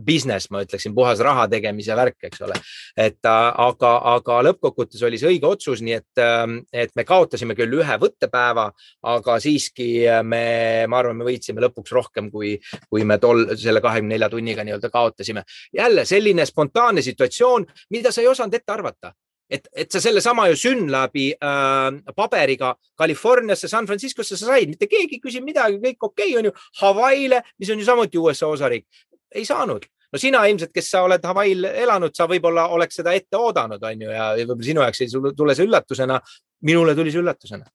business, ma ütleksin, puhas raha tegemise värk, eks ole. Et aga lõppkokkuvõttes oli see õige otsus, nii et me kaotasime küll ühe võttepäeva, aga siiski ma arvan, me võitsime lõpuks rohkem, kui me selle 24 tunniga nii-öelda kaotasime. Jälle selline spontaanne situatsioon, mida sa ei osanud ette arvata. Et sa selle sama ju Synlabi paberiga Californiasse, San Franciscosse sa said, mitte keegi küsib midagi, kõik okei on ju, Hawaii'le, mis on ju samuti USA osariik, ei saanud. No sina ilmselt, kes sa oled Hawaii'l elanud, sa võib-olla oleks seda ette oodanud, on ju, ja võib-olla sinu jaoks ei tule see üllatusena, minule tuli see üllatusena.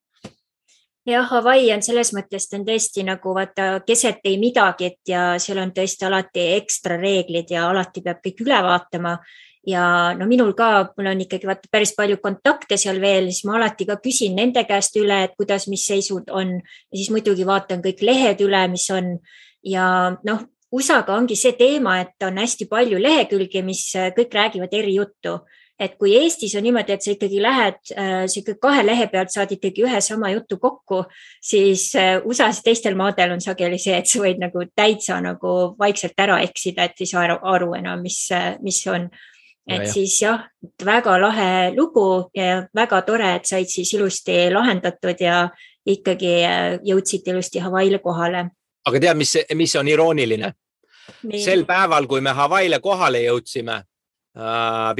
Ja Hawaii on selles mõttes, on tõesti nagu vaata keset ei midagi, ja seal on tõesti alati ekstra reeglid ja alati peab kõik üle vaatama. Ja no minul ka, mul on ikkagi päris palju kontakte seal veel, siis ma alati ka küsin nende käest üle, et kuidas, mis seisud on ja siis muidugi vaatan kõik lehed üle, mis on ja noh, USA-ga ongi see teema, et on hästi palju lehekülgi, mis kõik räägivad eri juttu. Et kui Eestis on niimoodi, et sa ikkagi lähed, sa 2 lehe pealt saad ikkagi ühe sama jutu kokku, siis USA-s teistel maadel on sageli see, et sa võid nagu täitsa nagu vaikselt ära eksida, et ei saa aru enam, mis on. Et siis jah, väga lahe lugu ja väga tore, et said siis ilusti lahendatud ja ikkagi jõudsid ilusti Hawaii'le kohale. Aga tead, mis on irooniline? Nii. Sel päeval, kui me Hawaii'le kohale jõudsime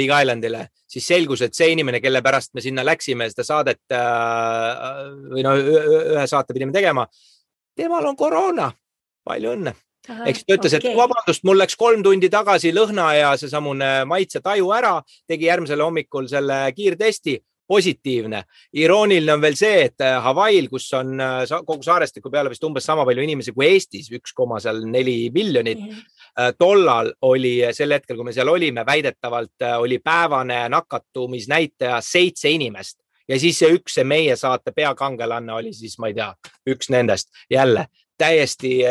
Big Islandile, siis selgus, et see inimene, kelle pärast me sinna läksime, seda saadet või ühe saate pidime tegema, temal on koroona. Palju õnne. Eks ta ütles, et vabandust, mul läks 3 tundi tagasi lõhna ja see samune maitse taju ära, tegi järgmisel hommikul selle kiirtesti, positiivne. Irooniline on veel see, et Hawaii'l, kus on kogu saarestiku peale vist umbes sama palju inimesi kui Eestis, 1,4 miljonit, tollal oli sel hetkel, kui me seal olime, väidetavalt oli päevane nakatumisnäitaja 7 inimest. Ja siis see meie saate peakangelanne oli siis, ma ei tea, üks nendest jälle. Täiesti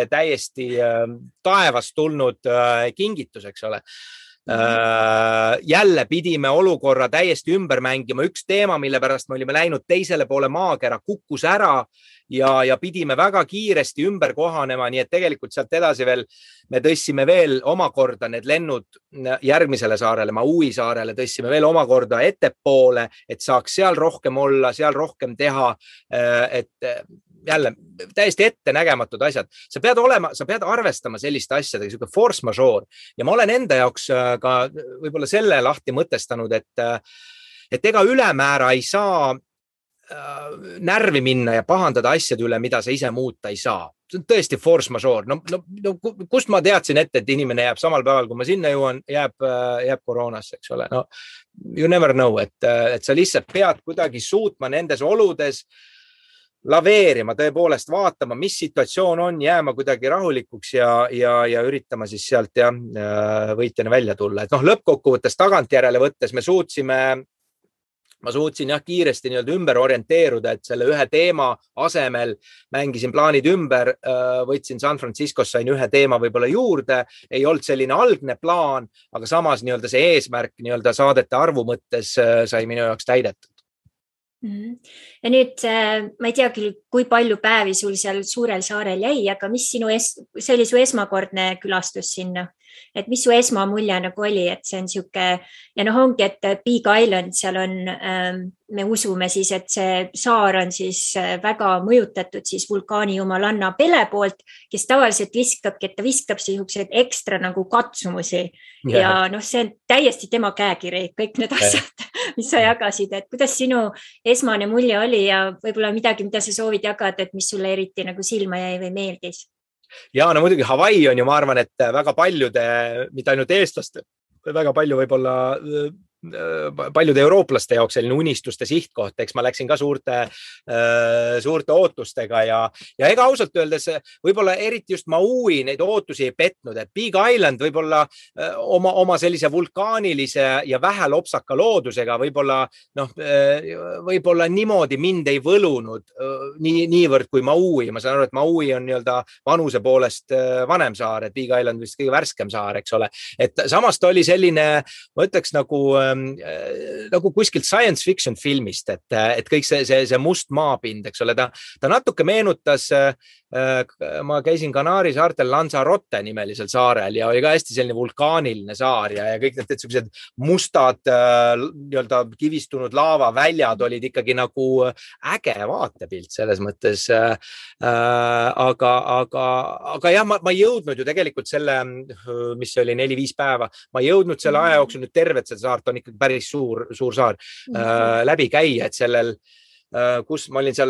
taevast tulnud kingitus, eks ole. Jälle pidime olukorra täiesti ümber mängima. Üks teema, mille pärast me olime läinud teisele poole maakera, kukkus ära ja pidime väga kiiresti ümber kohanema, nii et tegelikult sealt edasi veel me tõstsime veel omakorda need lennud järgmisele saarele, Maui saarele tõstsime veel omakorda ettepoole, et saaks seal rohkem olla, seal rohkem teha, et jälle täiesti ettenägematud asjad. Sa pead arvestama selliste asjadega, selline force majeure. Ja ma olen enda jaoks ka võib-olla selle lahti mõtestanud, et ega ülemäära ei saa närvi minna ja pahandada asjade üle, mida sa ise muuta ei saa. See on tõesti force majeure. No, kust ma teadsin ette, et inimene jääb samal päeval, kui ma sinna jõuan, jääb koroonasse, eks ole. No, you never know, et sa lihtsalt pead kuidagi suutma nendes oludes laveerima, tõepoolest vaatama, mis situatsioon on, jääma kuidagi rahulikuks ja üritama siis sealt võitjana välja tulla. Et lõppkokkuvõttes tagantjärele võttes ma suutsin kiiresti ümber orienteeruda, et selle ühe teema asemel mängisin plaanid ümber, võtsin San Franciscos, sain ühe teema võib-olla juurde, ei olnud selline algne plaan, aga samas see eesmärk saadete arvu mõttes sai minu jaoks täidetud. Ja nüüd ma ei tea küll, kui palju päevi sul seal suurel saarel jäi, aga mis see oli su esmakordne külastus sinna? Et mis su esmamulje nagu oli, et see on siuke ja ongi, et Big Island seal on, me usume siis, et see saar on siis väga mõjutatud siis vulkaani jumalanna Pele poolt, kes tavaliselt viskabki, et ta viskab siukseid ekstra nagu katsumusi ja see on täiesti tema käekiri, kõik need asjad, mis sa jagasid, et kuidas sinu esmane mulje oli ja võib-olla midagi, mida sa soovid jagada, et mis sulle eriti nagu silma jäi või meeldis? Ja no muidugi Hawaii on ju, ma arvan, et väga paljude, mitte ainult eestlaste, väga palju võib-olla paljude eurooplaste jaoks selline unistuste sihtkoht, eks ma läksin ka suurte ootustega ja ega ausalt öeldes võib-olla eriti just Maui neid ootusi ei petnud, et Big Island võib-olla oma sellise vulkaanilise ja vähe lopsaka loodusega võib-olla niimoodi mind ei võlunud niivõrd kui Maui. Ma saan aru, et Maui on nii-öelda vanuse poolest vanem saar, et Big Island vist kõige värskem saar, eks ole. Et samas ta oli selline, ma ütleks nagu kuskilt science fiction filmist, et kõik see must maapind, eks ole, ta natuke meenutas, ma käisin Kanaari saartel Lanzarote nimelisel saarel ja oli ka hästi selline vulkaaniline saar ja kõik need sellised mustad nii-öelda kivistunud laavaväljad olid ikkagi nagu äge vaatepilt selles mõttes. Aga jah, ma ei jõudnud ju tegelikult selle, mis oli 4-5 päeva, ma ei jõudnud selle aja jooksul nüüd tervet seda saart, on ikkagi päris suur saar läbi käia, et sellel kus ma olin seal,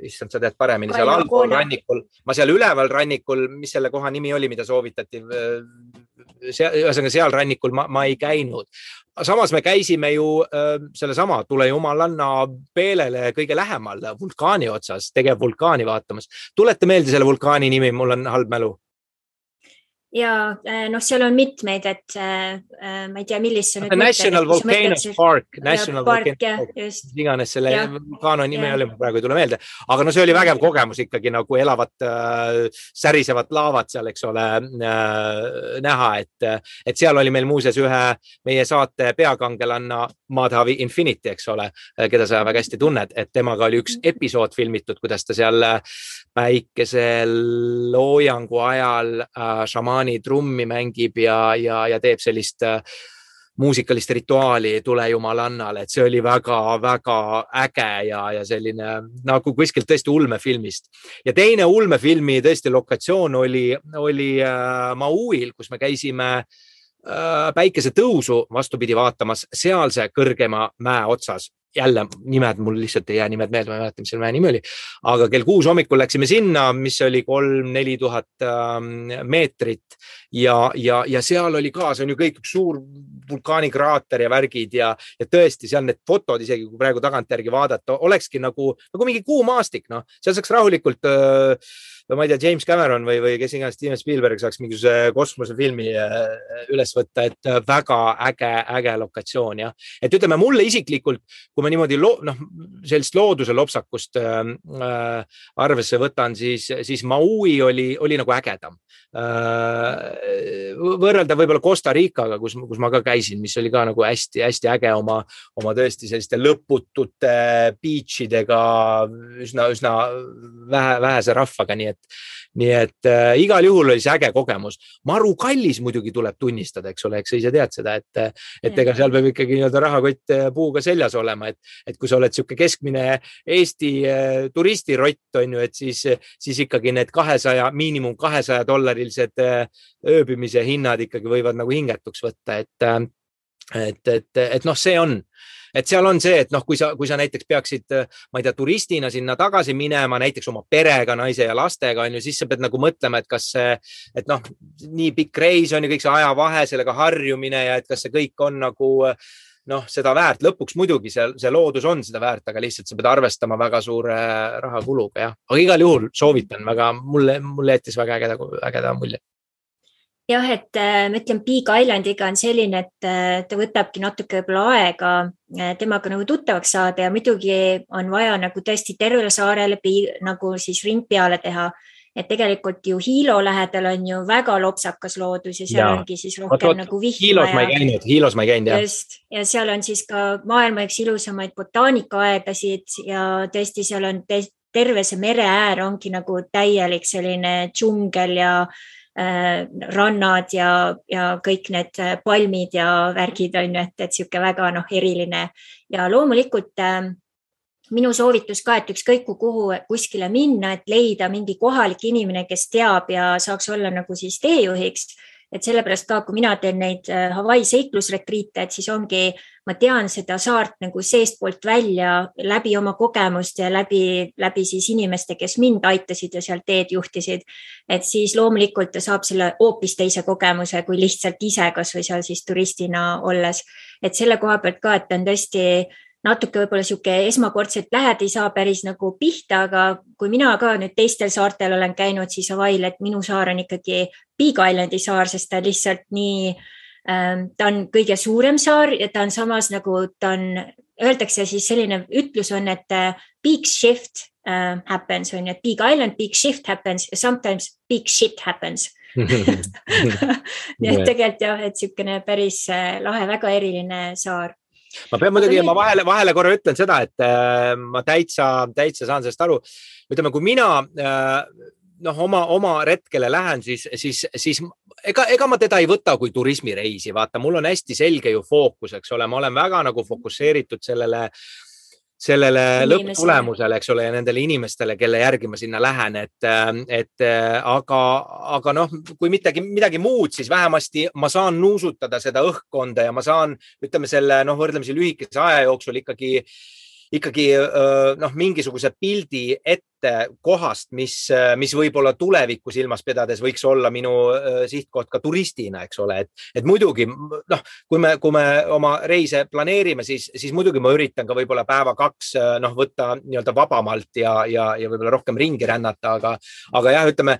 issand, sa tead paremini, seal allpool rannikul, ma seal üleval rannikul, mis selle koha nimi oli, mida soovitati, seal rannikul ma ei käinud. Samas me käisime ju selle sama Tule Jumalanna peelele kõige lähemal vulkaani otsas, tegevvulkaani vaatamas. Tulete meelde selle vulkaani nimi, mul on halb mälu. Ja seal on mitmeid, et ma ei tea, millist see nüüd National Volcano Park, iganes selle vulkaano nime oli, praegu ei tule meelde, aga see oli vägev kogemus ikkagi nagu elavat särisevat laavat seal, eks ole, näha, et seal oli meil muuseas ühe meie saate peakangelanna Madhavi Infinity, eks ole, keda sa väga hästi tunned, et temaga oli üks episood filmitud, kuidas ta seal päikeseloojangu ajal šamaani trummi mängib ja teeb sellist muusikalist rituaali Tule Jumalannale, et see oli väga-väga äge ja selline nagu kuskilt tõesti ulmefilmist. Ja teine ulmefilmi tõesti lokatsioon oli Mauil, kus me käisime päikese tõusu vastupidi vaatamas sealse kõrgema mäe otsas. Jälle nimed, mul lihtsalt ei jää nimed meelde, ma ei mäleta, mis selle mäe nimi oli. Aga kell 6 hommikul läksime sinna, mis oli 3-4 tuhat meetrit ja seal oli ka, see on ju kõik suur vulkaanikraater ja värgid ja tõesti seal need fotod, isegi kui praegu tagantjärgi vaadata, olekski nagu mingi kuumaastik, seal saaks rahulikult ma ei tea, James Cameron või kes iganes Steven Spielberg saaks mingisuguse kosmosefilmi üles võtta, et väga äge lokatsioon, jah. Et ütleme, mulle isiklikult, kui ma niimoodi sellist looduse lopsakust arvesse võtan, siis Maui oli nagu ägedam. Võrrelda võib-olla Costa Ricaga, kus ma ka käisin, mis oli ka nagu hästi äge oma tõesti selliste lõputute beachidega, üsna vähese rahvaga, nii et igal juhul oli see äge kogemus. Maru kallis muidugi tuleb tunnistada, eks ole, eks sa ise tead seda, et ega seal peab ikkagi nii-öelda rahakott puuga seljas olema, et kui sa oled siuke keskmine Eesti turistirott, on ju, et siis ikkagi need miinimum $200 ööbimise hinnad ikkagi võivad nagu hingetuks võtta, et see on. Et seal on see, et kui sa näiteks peaksid, ma ei tea, turistina sinna tagasi minema, näiteks oma perega, naise ja lastega, on ju, siis sa pead nagu mõtlema, et kas see, nii pikk reis on ju kõik see ajavahe, sellega harjumine ja et kas see kõik on nagu seda väärt. Lõpuks muidugi see loodus on seda väärt, aga lihtsalt sa pead arvestama väga suure rahakuluga, jah. Aga igal juhul soovitan väga, mulle jättis väga ägeda mulje. Jah, et ma ütlen, Big Islandiga on selline, et ta võtabki natuke võib-olla aega temaga nagu tuttavaks saada ja muidugi on vaja nagu tõesti tervele saarele nagu siis ring peale teha. Et tegelikult ju Hilo lähedal on ju väga lopsakas loodus ja seal ongi siis rohkem nagu vihma. Hilos ma ei käinud, jah. Just, ja seal on siis ka maailma üks ilusamaid botaanikaaedasid ja tõesti seal on terve see mere äär ongi nagu täielik selline džungel ja rannad ja kõik need palmid ja värgid on ju, et siuke väga eriline ja loomulikult minu soovitus ka, et ükskõik kuhu kuskile minna, et leida mingi kohalik inimene, kes teab ja saaks olla nagu siis teejuhiks, et sellepärast ka, kui mina teen neid Hawaii seiklusretriite, et siis ongi, ma tean seda saart nagu seestpoolt välja läbi oma kogemust ja läbi siis inimeste, kes mind aitasid ja seal teed juhtisid. Et siis loomulikult ta saab selle hoopis teise kogemuse, kui lihtsalt ise kas või seal siis turistina olles. Et selle koha pealt ka, et on tõesti natuke võib-olla siuke esmakordselt lähed, ei saa päris nagu pihta, aga kui mina ka nüüd teistel saartel olen käinud, siis Hawaii'l, et minu saar on ikkagi Big Islandi saar, sest ta lihtsalt nii, ta on kõige suurem saar ja ta on samas nagu ta on, öeldakse siis selline ütlus on, et big shift happens on, et Big Island, big shift happens ja sometimes big shit happens. Nii et tegelikult jah, et siukene päris lahe, väga eriline saar. Ma pean muidugi, ma vahele korra ütlen seda, et ma täitsa saan sellest aru. Ütleme, kui mina oma retkele lähen, siis ega ma teda ei võta kui turismireisi. Vaata, mul on hästi selge ju fookus, eks ole. Ma olen väga nagu fokusseeritud sellele lõpptulemusele, eks ole, ja nendele inimestele, kelle järgi ma sinna lähen, aga kui midagi muud, siis vähemasti ma saan nuusutada seda õhkkonda ja ma saan, ütleme selle, võrdlemisi lühikese aja jooksul ikkagi mingisuguse pildi ette kohast, mis võib-olla tulevikku silmas pidades võiks olla minu sihtkoht ka turistina, eks ole, et muidugi, kui me oma reise planeerime, siis muidugi ma üritan ka võib-olla päeva 2 võtta nii-öelda vabamalt ja võib-olla rohkem ringi rännata, aga jah, ütleme,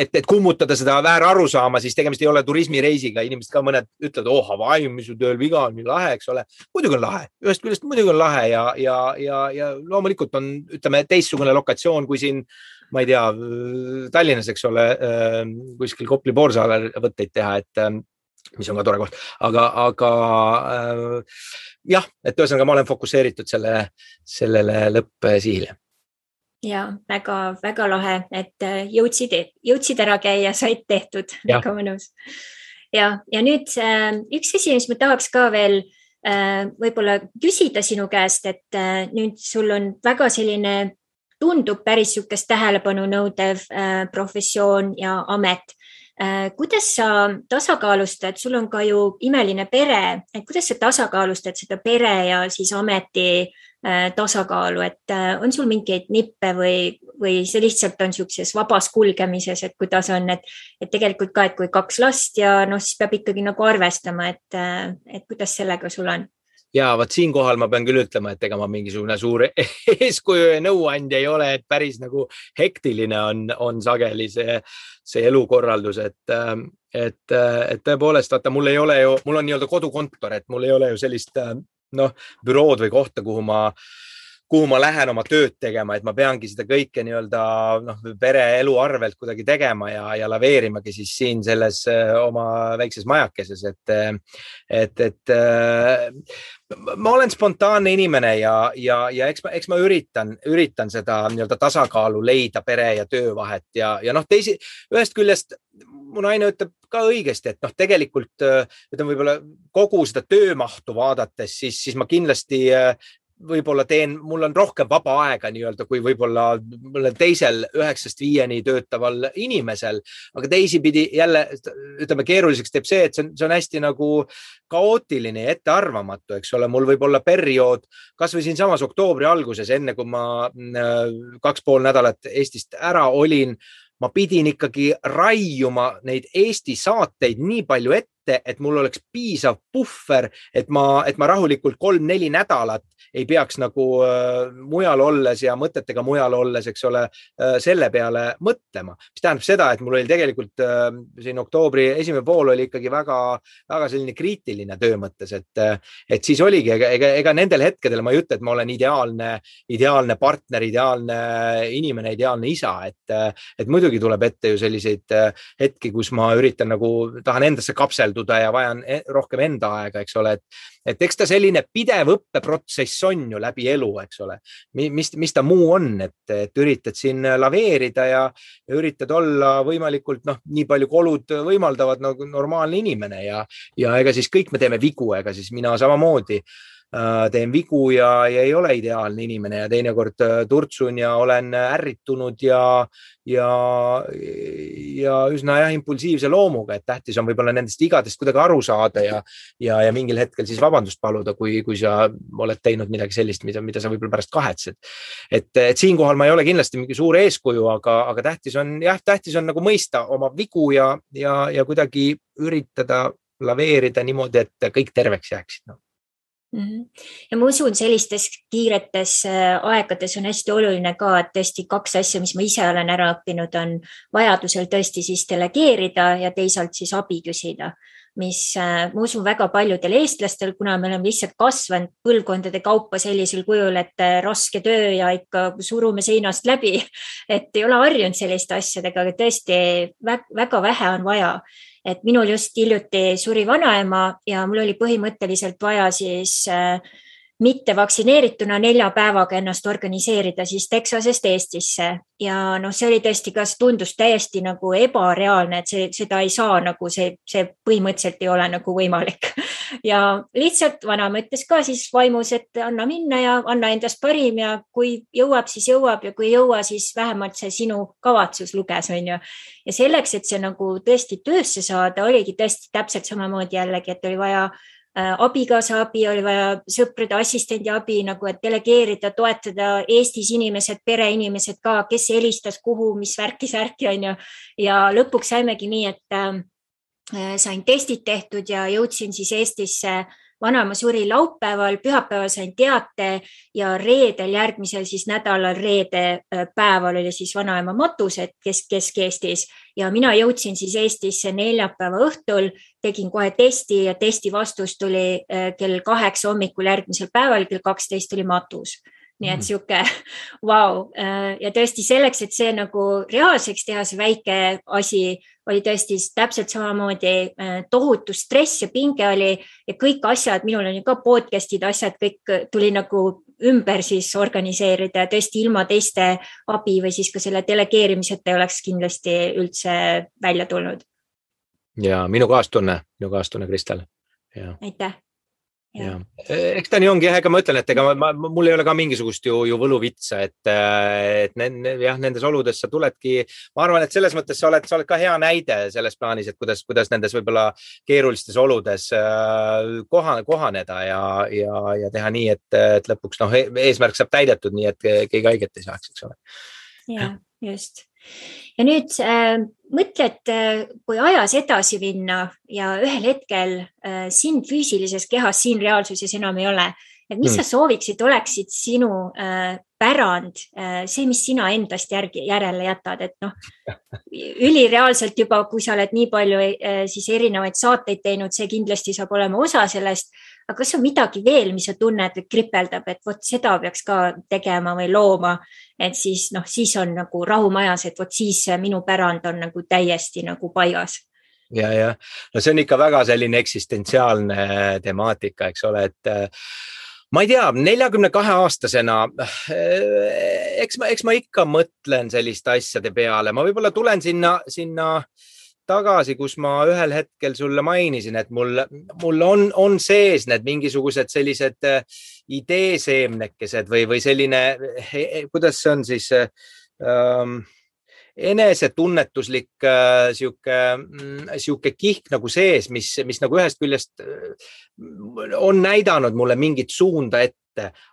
et kummutada seda väärarusaama, siis tegemist ei ole turismireisiga, inimesed ka mõned ütlevad, Hawaii, mis su tööl viga on, nii lahe, eks ole, muidugi on lahe, ühest küljest muidugi on lahe ja loomulikult on, ütleme, teistsugune lokatsioon kui siin, ma ei tea, Tallinnas, eks ole, kuskil Kopli Poorsaal võtteid teha, et mis on ka tore koht, aga jah, et ühesõnaga ma olen fokusseeritud sellele lõppsihile. Ja väga, väga lahe, et jõudsid ära käia, said tehtud, väga mõnus. Ja nüüd üks asi, mis ma tahaks ka veel võib-olla küsida sinu käest, et nüüd sul on väga selline, tundub päris sukest tähelepanu nõudev professioon ja amet. Kuidas sa tasakaalustad, sul on ka ju imeline pere, et kuidas sa tasakaalustad seda pere ja siis ameti tasakaalu, et on sul mingeid nippe või see lihtsalt on siukses vabas kulgemises, et kuidas on, et tegelikult ka, et kui 2 last ja siis peab ikkagi nagu arvestama, et kuidas sellega sul on? Ja vaat siinkohal ma pean küll ütlema, et ega ma mingisugune suur eeskuju ja nõuandja ei ole, et päris nagu hektiline on sageli see elukorraldus, et tõepoolest, vaata, mul on nii-öelda kodukontor, et mul ei ole ju sellist bürood või kohta, kuhu ma lähen oma tööd tegema, et ma peangi seda kõike nii-öelda pere elu arvelt kuidagi tegema ja laveerimagi siis siin selles oma väikses majakeses, et ma olen spontaanne inimene ja eks ma üritan seda nii-öelda tasakaalu leida pere ja töö vahet ja ühest küljest mu naine ütleb ka õigesti, et tegelikult ütleme võib-olla kogu seda töömahtu vaadates, siis ma kindlasti võib-olla mul on rohkem vaba aega nii-öelda kui võib-olla teisel 9-5 töötaval inimesel, aga teisipidi jälle, ütleme, keeruliseks teeb see, et see on hästi nagu kaootiline ja ettearvamatu, eks ole, mul võib olla periood, kas või siin samas oktoobri alguses, enne kui ma 2,5 nädalat Eestist ära olin, ma pidin ikkagi raiuma neid Eesti saateid nii palju ette, et mul oleks piisav puhver, et ma rahulikult 3-4 nädalat ei peaks nagu mujal olles ja mõtetega mujal olles, eks ole, selle peale mõtlema. Mis tähendab seda, et mul oli tegelikult siin oktoobri esimene pool oli ikkagi väga, väga selline kriitiline töö mõttes, et siis oligi, ega nendel hetkedel ma ei ütle, et ma olen ideaalne partner, ideaalne inimene, ideaalne isa, et muidugi tuleb ette ju selliseid hetki, kus ma üritan tahan endasse kapselduda ja vajan rohkem enda aega, eks ole, et eks ta selline pidev õppeprotsess on ju läbi elu, eks ole, mis ta muu on, et üritad siin laveerida ja üritad olla võimalikult nii palju kolud võimaldavad nagu normaalne inimene ja ega siis kõik me teeme vigu, ega siis mina samamoodi teen vigu ja ei ole ideaalne inimene ja teinekord turtsun ja olen ärritunud ja üsna impulsiivse loomuga, et tähtis on võib-olla nendest vigadest kuidagi aru saada ja mingil hetkel siis vabandust paluda, kui sa oled teinud midagi sellist, mida sa võib-olla pärast kahetsed. Et siinkohal ma ei ole kindlasti mingi suur eeskuju, aga tähtis on nagu mõista oma vigu ja kuidagi üritada laveerida niimoodi, et kõik terveks jääksid. Ja ma usun, sellistes kiiretes aegades on hästi oluline ka, et tõesti 2 asja, mis ma ise olen ära õppinud, on vajadusel tõesti siis delegeerida ja teisalt siis abi küsida, mis ma usun väga paljudel eestlastel, kuna me oleme lihtsalt kasvanud põlvkondade kaupa sellisel kujul, et raske töö ja ikka surume seinast läbi, et ei ole harjunud selliste asjadega, aga tõesti väga vähe on vaja. Et minul just hiljuti suri vanaema ja mul oli põhimõtteliselt vaja siis mitte vaktsineerituna 4 päevaga ennast organiseerida siis Texasest Eestisse. Ja see oli tõesti, kas tundus täiesti nagu ebareaalne, et seda ei saa nagu see põhimõtteliselt ei ole nagu võimalik. Ja lihtsalt vanaema ütles ka siis vaimus, et anna minna ja anna endast parim ja kui jõuab, siis jõuab ja kui ei jõua, siis vähemalt see sinu kavatsus luges, on ju. Ja selleks, et see nagu tõesti töösse saada, oligi tõesti täpselt samamoodi jällegi, et oli vaja abikaasa abi, oli vaja sõprade assistendi abi, nagu et delegeerida, toetada Eestis inimesed, pereinimesed ka, kes helistas kuhu, mis värki on ju. Ja lõpuks saimegi nii, et sain testid tehtud ja jõudsin siis Eestisse. Vanaema suri laupäeval, pühapäeval sain teate ja reedel järgmisel siis nädalal reede päeval oli siis vanaema matus, et Kesk-Eestis ja mina jõudsin siis Eestisse neljapäeva õhtul, tegin kohe testi ja testi vastus tuli kell 8 hommikul järgmisel päeval, kell 12 tuli matus. Nii et siuke wow. Ja tõesti selleks, et see nagu reaalseks teha, see väike asi oli tõesti täpselt samamoodi tohutu stress ja pinge oli ja kõik asjad, minul on ju ka podcastid, asjad, kõik tuli nagu ümber siis organiseerida ja tõesti ilma teiste abi või siis ka selle delegeerimiseta ei oleks kindlasti üldse välja tulnud. Ja minu kaastunne, Kristel. Ja. Aitäh. Ja. Eks ta nii ongi, ega ma ütlen, et mul ei ole ka mingisugust ju võluvitsa, et nendes oludes sa tuledki, ma arvan, et selles mõttes sa oled ka hea näide selles plaanis, et kuidas nendes võibolla keerulistes oludes kohaneda ja teha nii, et lõpuks eesmärk saab täidetud nii, et keegi haiget ei saaks, eks ole. Ja, just. Ja nüüd mõtled, kui ajas edasi minna ja ühel hetkel sind füüsilises kehas, siin reaalsuses enam ei ole, et mis sa sooviksid, oleksid sinu pärand, see, mis sina endast järele jätad, et ülireaalselt juba, kui sa oled nii palju siis erinevaid saateid teinud, see kindlasti saab olema osa sellest, aga kas on midagi veel, mis sa tunned või kripeldab, et vot seda peaks ka tegema või looma, et siis on nagu rahumajas, et vot siis minu pärand on nagu täiesti nagu paigas. Ja. See on ikka väga selline eksistentsiaalne temaatika, eks ole, et ma ei tea, 42-aastasena, eks ma ikka mõtlen selliste asjade peale, ma võibolla tulen sinna tagasi, kus ma ühel hetkel sulle mainisin, et mul on sees need mingisugused sellised ideeseemnekesed või selline, kuidas see on siis enesetunnetuslik siuke kihk nagu sees, mis nagu ühest küljest on näidanud mulle mingit suunda ette,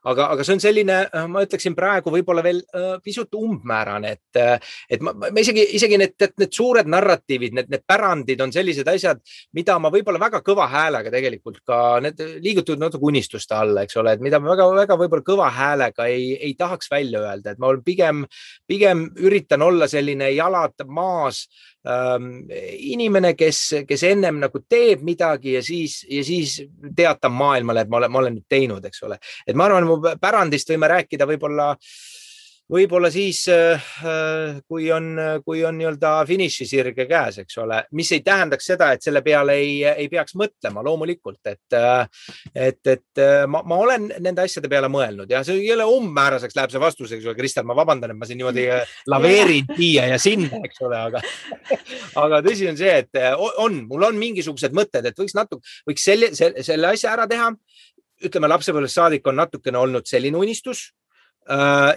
aga see on selline, ma ütleksin praegu võib-olla veel pisut umbmäärane, et ma isegi need suured narratiivid, need pärandid on sellised asjad, mida ma võib-olla väga kõva häälega tegelikult ka need liigutud natuke unistuste alla, eks ole, et mida ma väga võib-olla kõva häälega ei tahaks välja öelda, et ma pigem üritan olla selline jalad maas inimene, kes ennem nagu teeb midagi ja siis teatab maailmale, et ma olen nüüd teinud, eks ole. Et ma arvan, mu pärandist võime rääkida võib-olla siis, kui on nii-öelda finišisirge käes, eks ole, mis ei tähendaks seda, et selle peale ei peaks mõtlema loomulikult, et ma olen nende asjade peale mõelnud ja see ei ole umbmääraseks läheb see vastus, eks ole, Kristel, ma vabandan, et ma siin niimoodi laveerin siia ja sinna, eks ole, aga tõsi on see, et mul on mingisugused mõtted, et võiks selle asja ära teha ütleme, lapsepõlvest saadik on natukene olnud selline unistus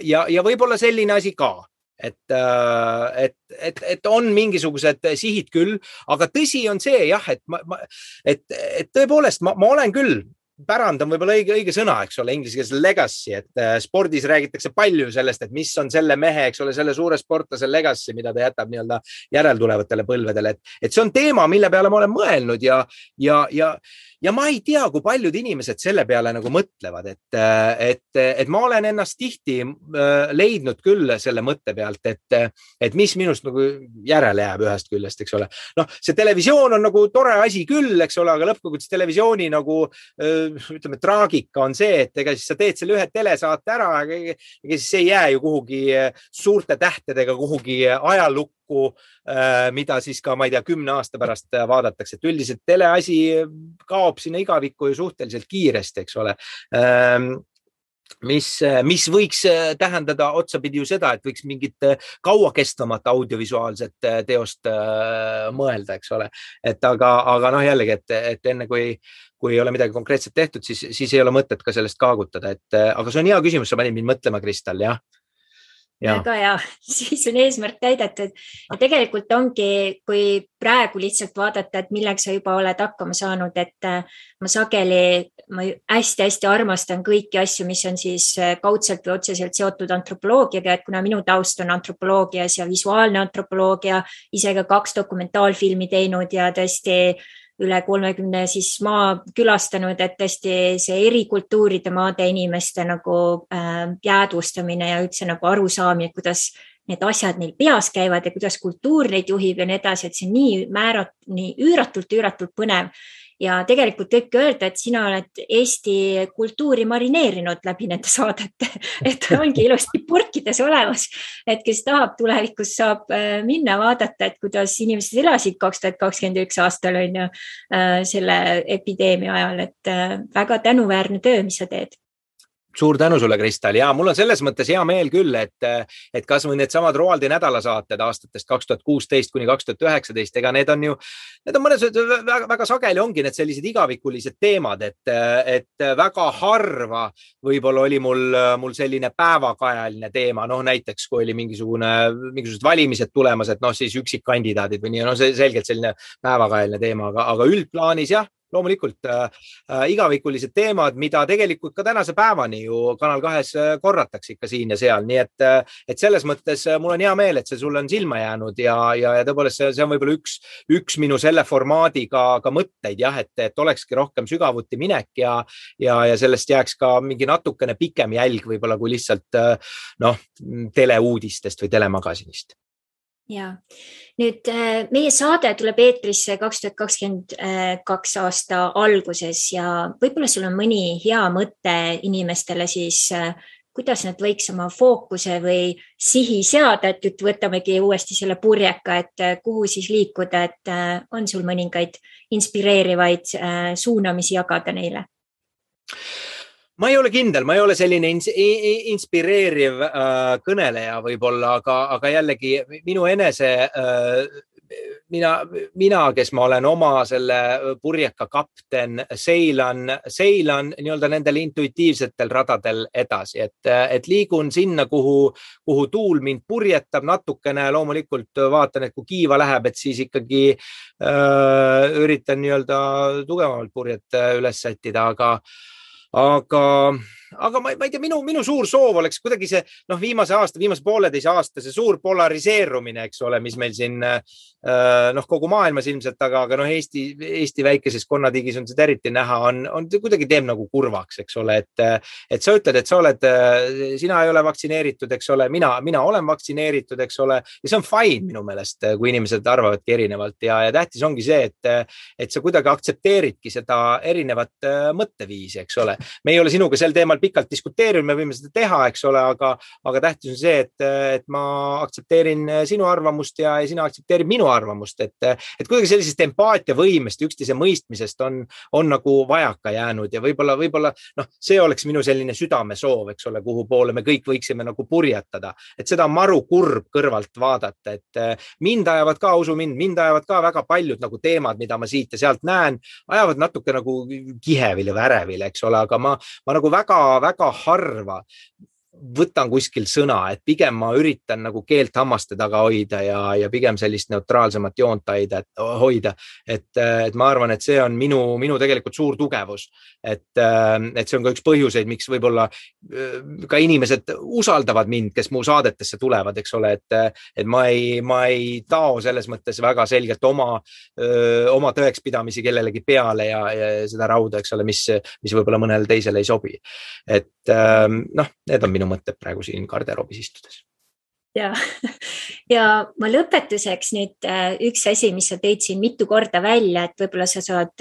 ja võib-olla selline asi ka. Et on mingisugused sihid küll, aga tõsi on see jah, et tõepoolest ma olen küll, pärand on võib-olla õige sõna, eks ole, inglise keeles legacy, et spordis räägitakse palju sellest, et mis on selle mehe, eks ole, selle suure sportlase legacy, mida ta jätab nii-öelda järeltulevatele põlvedele, et see on teema, mille peale ma olen mõelnud ja ma ei tea, kui paljud inimesed selle peale nagu mõtlevad, et ma olen ennast tihti leidnud küll selle mõtte pealt, et mis minust nagu järele jääb ühest küljest, eks ole. Noh, see televisioon on nagu tore asi küll, eks ole, aga lõppkokkuvõttes televisiooni nagu ütleme, traagika on see, et ega siis sa teed selle ühe telesaate ära, ega siis ei jää ju kuhugi suurte tähtedega kuhugi ajalukku, mida siis ka, ma ei tea, 10 aasta pärast vaadatakse, et üldiselt teleasi kaob sinna igavikku ju suhteliselt kiiresti, eks ole. Mis võiks tähendada otsapidi ju seda, et võiks mingit kauakestvamat audiovisuaalset teost mõelda, eks ole. Et aga noh, jällegi, et enne kui ei ole midagi konkreetselt tehtud, siis ei ole mõtet ka sellest kaagutada. Aga see on hea küsimus, sa panid mind mõtlema, Kristal, jah. Väga hea, siis on eesmärk täidetud ja tegelikult ongi, kui praegu lihtsalt vaadata, et milleks sa juba oled hakkama saanud, et ma hästi armastan kõiki asju, mis on siis kaudselt või otseselt seotud antropoloogiaga, et kuna minu taust on antropoloogias ja visuaalne antropoloogia, ise ka 2 dokumentaalfilmi teinud ja tõesti üle 30 siis maa külastanud, et tõesti see eri kultuuride maade inimeste nagu jäädvustamine ja üldse nagu arusaamine, kuidas need asjad neil peas käivad ja kuidas kultuur neid juhib ja nii edasi, et see on nii üüratult põnev. Ja tegelikult võibki öelda, et sina oled Eesti kultuuri marineerinud läbi nende saadete, et ongi ilusti purkides olemas, et kes tahab tulevikus saab minna vaadata, et kuidas inimesed elasid 2021 aastal on ju selle epideemia ajal, et väga tänuväärne töö, mis sa teed. Suur tänu sulle, Kristal. Ja mul on selles mõttes hea meel küll, et kas või need samad Roaldi nädalasaated aastatest 2016 kuni 2019, ega need on mõnes väga sageli ongi need sellised igavikulised teemad, et väga harva võib-olla oli mul selline päevakajaline teema, noh näiteks kui oli mingisugused valimised tulemas, et noh siis üksikkandidaadid või nii, no see selgelt selline päevakajaline teema, aga üldplaanis jah, loomulikult igavikulised teemad, mida tegelikult ka tänase päevani ju Kanal 2 korratakse ikka siin ja seal. Nii et selles mõttes mul on hea meel, et see sulle on silma jäänud ja tõepoolest see on võib-olla üks minu selle formaadi ka mõtteid, jah, et olekski rohkem sügavuti minek ja sellest jääks ka mingi natukene pikem jälg võib-olla kui lihtsalt teleuudistest või telemagasinist. Ja nüüd meie saade tuleb eetrisse 2022 aasta alguses ja võib-olla sul on mõni hea mõte inimestele siis, kuidas nad võiks oma fookuse või sihi seada, et võtamegi uuesti selle purjeka, et kuhu siis liikuda, et on sul mõningaid inspireerivaid suunamisi jagada neile? Ma ei ole kindel, ma ei ole selline inspireeriv kõneleja võib-olla, aga jällegi minu enese, mina, kes ma olen oma selle purjeka kapten, seilan nii-öelda nendel intuitiivsetel radadel edasi, et liigun sinna, kuhu tuul mind purjetab natukene, loomulikult vaatan, et kui kiiva läheb, et siis ikkagi üritan nii-öelda tugevamalt purjet üles sättida, aga ma ei tea, minu suur soov oleks kuidagi see, viimase 1,5 aasta, see suur polariseerumine, eks ole, mis meil siin, kogu maailmas ilmselt, aga Eesti väikeses konnatigis on seda eriti näha, on kuidagi teeb nagu kurvaks, eks ole, et sa ütled, et sina ei ole vaktsineeritud, eks ole, mina olen vaktsineeritud, eks ole, ja see on fine minu meelest, kui inimesed arvavadki erinevalt ja tähtis ongi see, et sa kuidagi aktsepteeridki seda erinevat mõtteviisi, eks ole. Me ei ole sinuga sel teemal pikalt diskuteerida, me võime seda teha, eks ole, aga tähtis on see, et ma aktsepteerin sinu arvamust ja sina aktsepteerid minu arvamust, et kuidagi sellisest empaatiavõimest, üksteise mõistmisest on nagu vajaka jäänud ja võib-olla see oleks minu selline südamesoov, eks ole, kuhu poole me kõik võiksime nagu purjetada, et seda maru kurb kõrvalt vaadata, et mind ajavad ka, usu mind ajavad ka väga paljud nagu teemad, mida ma siit ja sealt näen, ajavad natuke nagu kihevile või ärevile, eks ole, aga ma nagu väga harva võtan kuskil sõna, et pigem ma üritan nagu keelt hammaste taga hoida ja pigem sellist neutraalsemat joont hoida, et ma arvan, et see on minu tegelikult suur tugevus, et see on ka üks põhjuseid, miks võib-olla ka inimesed usaldavad mind, kes mu saadetesse tulevad, eks ole, et ma ei tao selles mõttes väga selgelt oma tõekspidamisi kellelegi peale ja seda rauda, eks ole, mis võib-olla mõnele teisele ei sobi. Et need on minu mõtted praegu siin garderoobis istudes. Ja ma lõpetuseks nüüd üks asi, mis sa tõid siin mitu korda välja, et võib-olla sa saad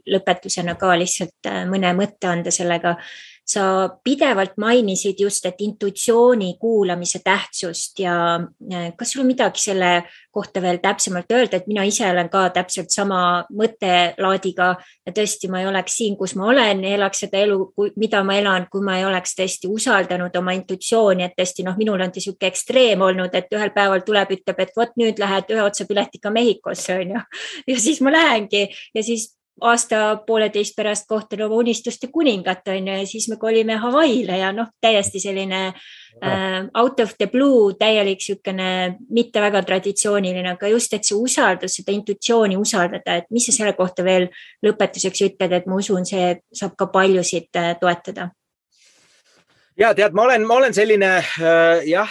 lõpetusena ka lihtsalt mõne mõtte anda sellega. Sa pidevalt mainisid just, et intuitsiooni kuulamise tähtsust ja kas sul on midagi selle kohta veel täpsemalt öelda, et mina ise olen ka täpselt sama mõttelaadiga ja tõesti ma ei oleks siin, kus ma olen, elaks seda elu, mida ma elan, kui ma ei oleks tõesti usaldanud oma intuitsiooni, et tõesti minul on siuke ekstreem olnud, et ühel päeval tuleb, ütleb, et vot nüüd lähed ühe otsa piletiga Mehhikosse, on ju. Ja siis ma lähengi ja siis aasta pooleteist pärast kohtan oma unistuste kuningat, on ju, ja siis me kolime Hawaiile ja täiesti selline out of the blue, täielik sükene mitte väga traditsiooniline, aga just, et see usaldus, seda intuitsiooni usaldada, et mis sa selle kohta veel lõpetuseks ütled, et ma usun, see saab ka paljusid toetada. Ja tead, ma olen selline,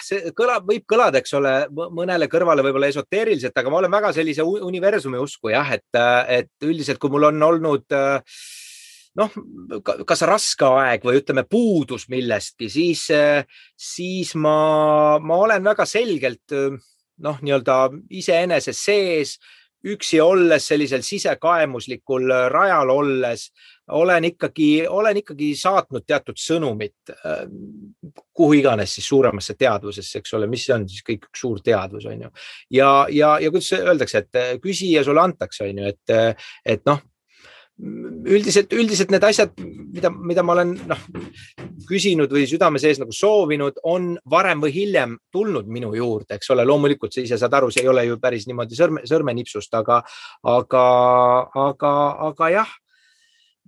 see võib kõlada, eks ole, mõnele kõrvale võib-olla esoteeriliselt, aga ma olen väga sellise universumi usku, et üldiselt, kui mul on olnud kas raske aeg või ütleme puudus millestki, siis ma olen väga selgelt nii-öelda iseenese sees, üksi olles, sellisel sisekaemuslikul rajal olles, olen ikkagi saatnud teatud sõnumit, kuhu iganes siis suuremasse teadvusesse, eks ole, mis on siis kõik üks suur teadvus, on ju. Ja kuidas öeldakse, et küsi ja sulle antakse, on ju, et üldiselt need asjad, mida ma olen küsinud või südame sees nagu soovinud, on varem või hiljem tulnud minu juurde, eks ole, loomulikult sa ise saad aru, see ei ole ju päris niimoodi sõrmenipsust, aga jah,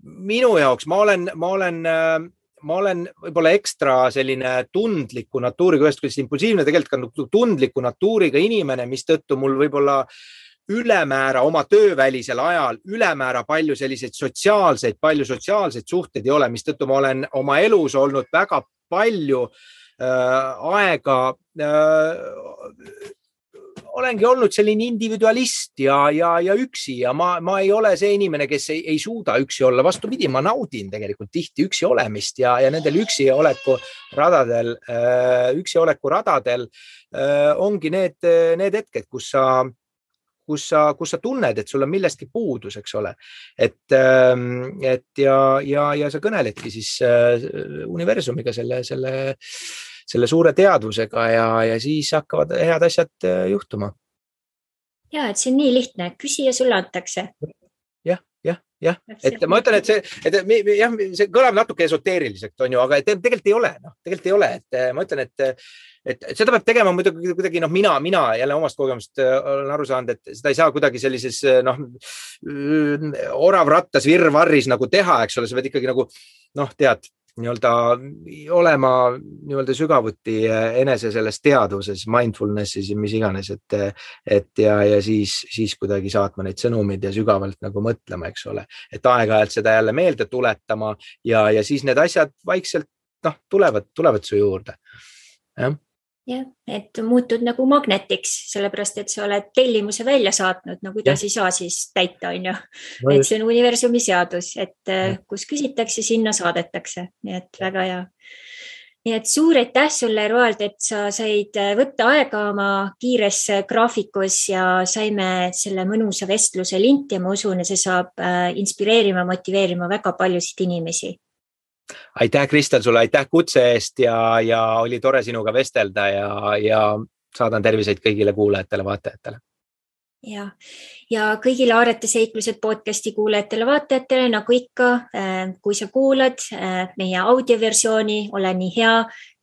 minu jaoks ma olen võib-olla ekstra selline tundliku natuuriga, ühest küljest impulsiivne, tegelikult ka tundliku natuuriga inimene, mis tõttu mul võib-olla ülemäära oma töövälisel ajal, ülemäära palju selliseid sotsiaalseid suhteid ei ole, mis tõttu ma olen oma elus olnud väga palju aega, olengi olnud selline individualist ja üksi ja ma ei ole see inimene, kes ei suuda üksi olla. Vastupidi, ma naudin tegelikult tihti üksi olemist ja nendel üksi oleku radadel ongi need hetked, kus sa tunned, et sul on millestki puudus, eks ole. Et ja sa kõneledki siis universumiga selle suure teadvusega ja siis hakkavad head asjad juhtuma. Ja, et see on nii lihtne. Küsi ja sulle antakse. Jah. Et ma ütlen, et see kõlab natuke esoteeriliselt, on ju, aga tegelikult ei ole. Tegelikult ei ole. Et ma ütlen, et seda peab tegema muidugi kuidagi, mina jälle omast kogemust olen aru saanud, et seda ei saa kuidagi sellises oravrattas virvarris nagu teha, eks ole, sa pead ikkagi nagu, tead, nii-öelda olema nii-öelda sügavuti enese selles teadvuses, mindfulnessis ja mis iganes, et siis kuidagi saatma neid sõnumid ja sügavalt nagu mõtlema, eks ole, et aeg-ajalt seda jälle meelde tuletama ja siis need asjad vaikselt tulevad su juurde. Jah, et muutud nagu magnetiks, sellepärast, et sa oled tellimuse välja saatnud, kuidas ei saa siis täita, on ju. Et see on universumi seadus, et kus küsitakse, sinna saadetakse. Nii et väga hea. Nii et suur aitäh sulle, Roald, et sa said võtta aega oma kiires graafikus ja saime selle mõnusa vestluse linti ja ma usun, et see saab inspireerima, motiveerima väga paljusid inimesi. Aitäh, Kristel, sulle aitäh kutse eest ja oli tore sinuga vestelda ja saadan terviseid kõigile kuulajatele, vaatajatele. Ja kõigile Aarete seiklused podcasti kuulajatele, vaatajatele, nagu ikka, kui sa kuulad meie audioversiooni, ole nii hea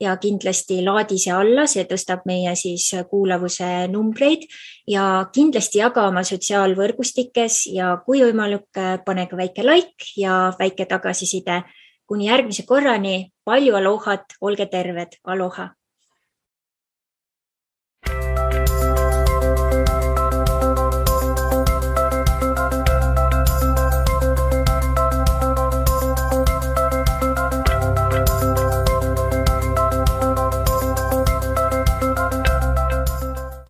ja kindlasti laadi see alla, see tõstab meie siis kuulavuse numbreid ja kindlasti jaga oma sotsiaalvõrgustikes ja kui võimalik, pane ka väike like ja väike tagasiside. Kuni järgmise korrani, palju alohat, olge terved, aloha!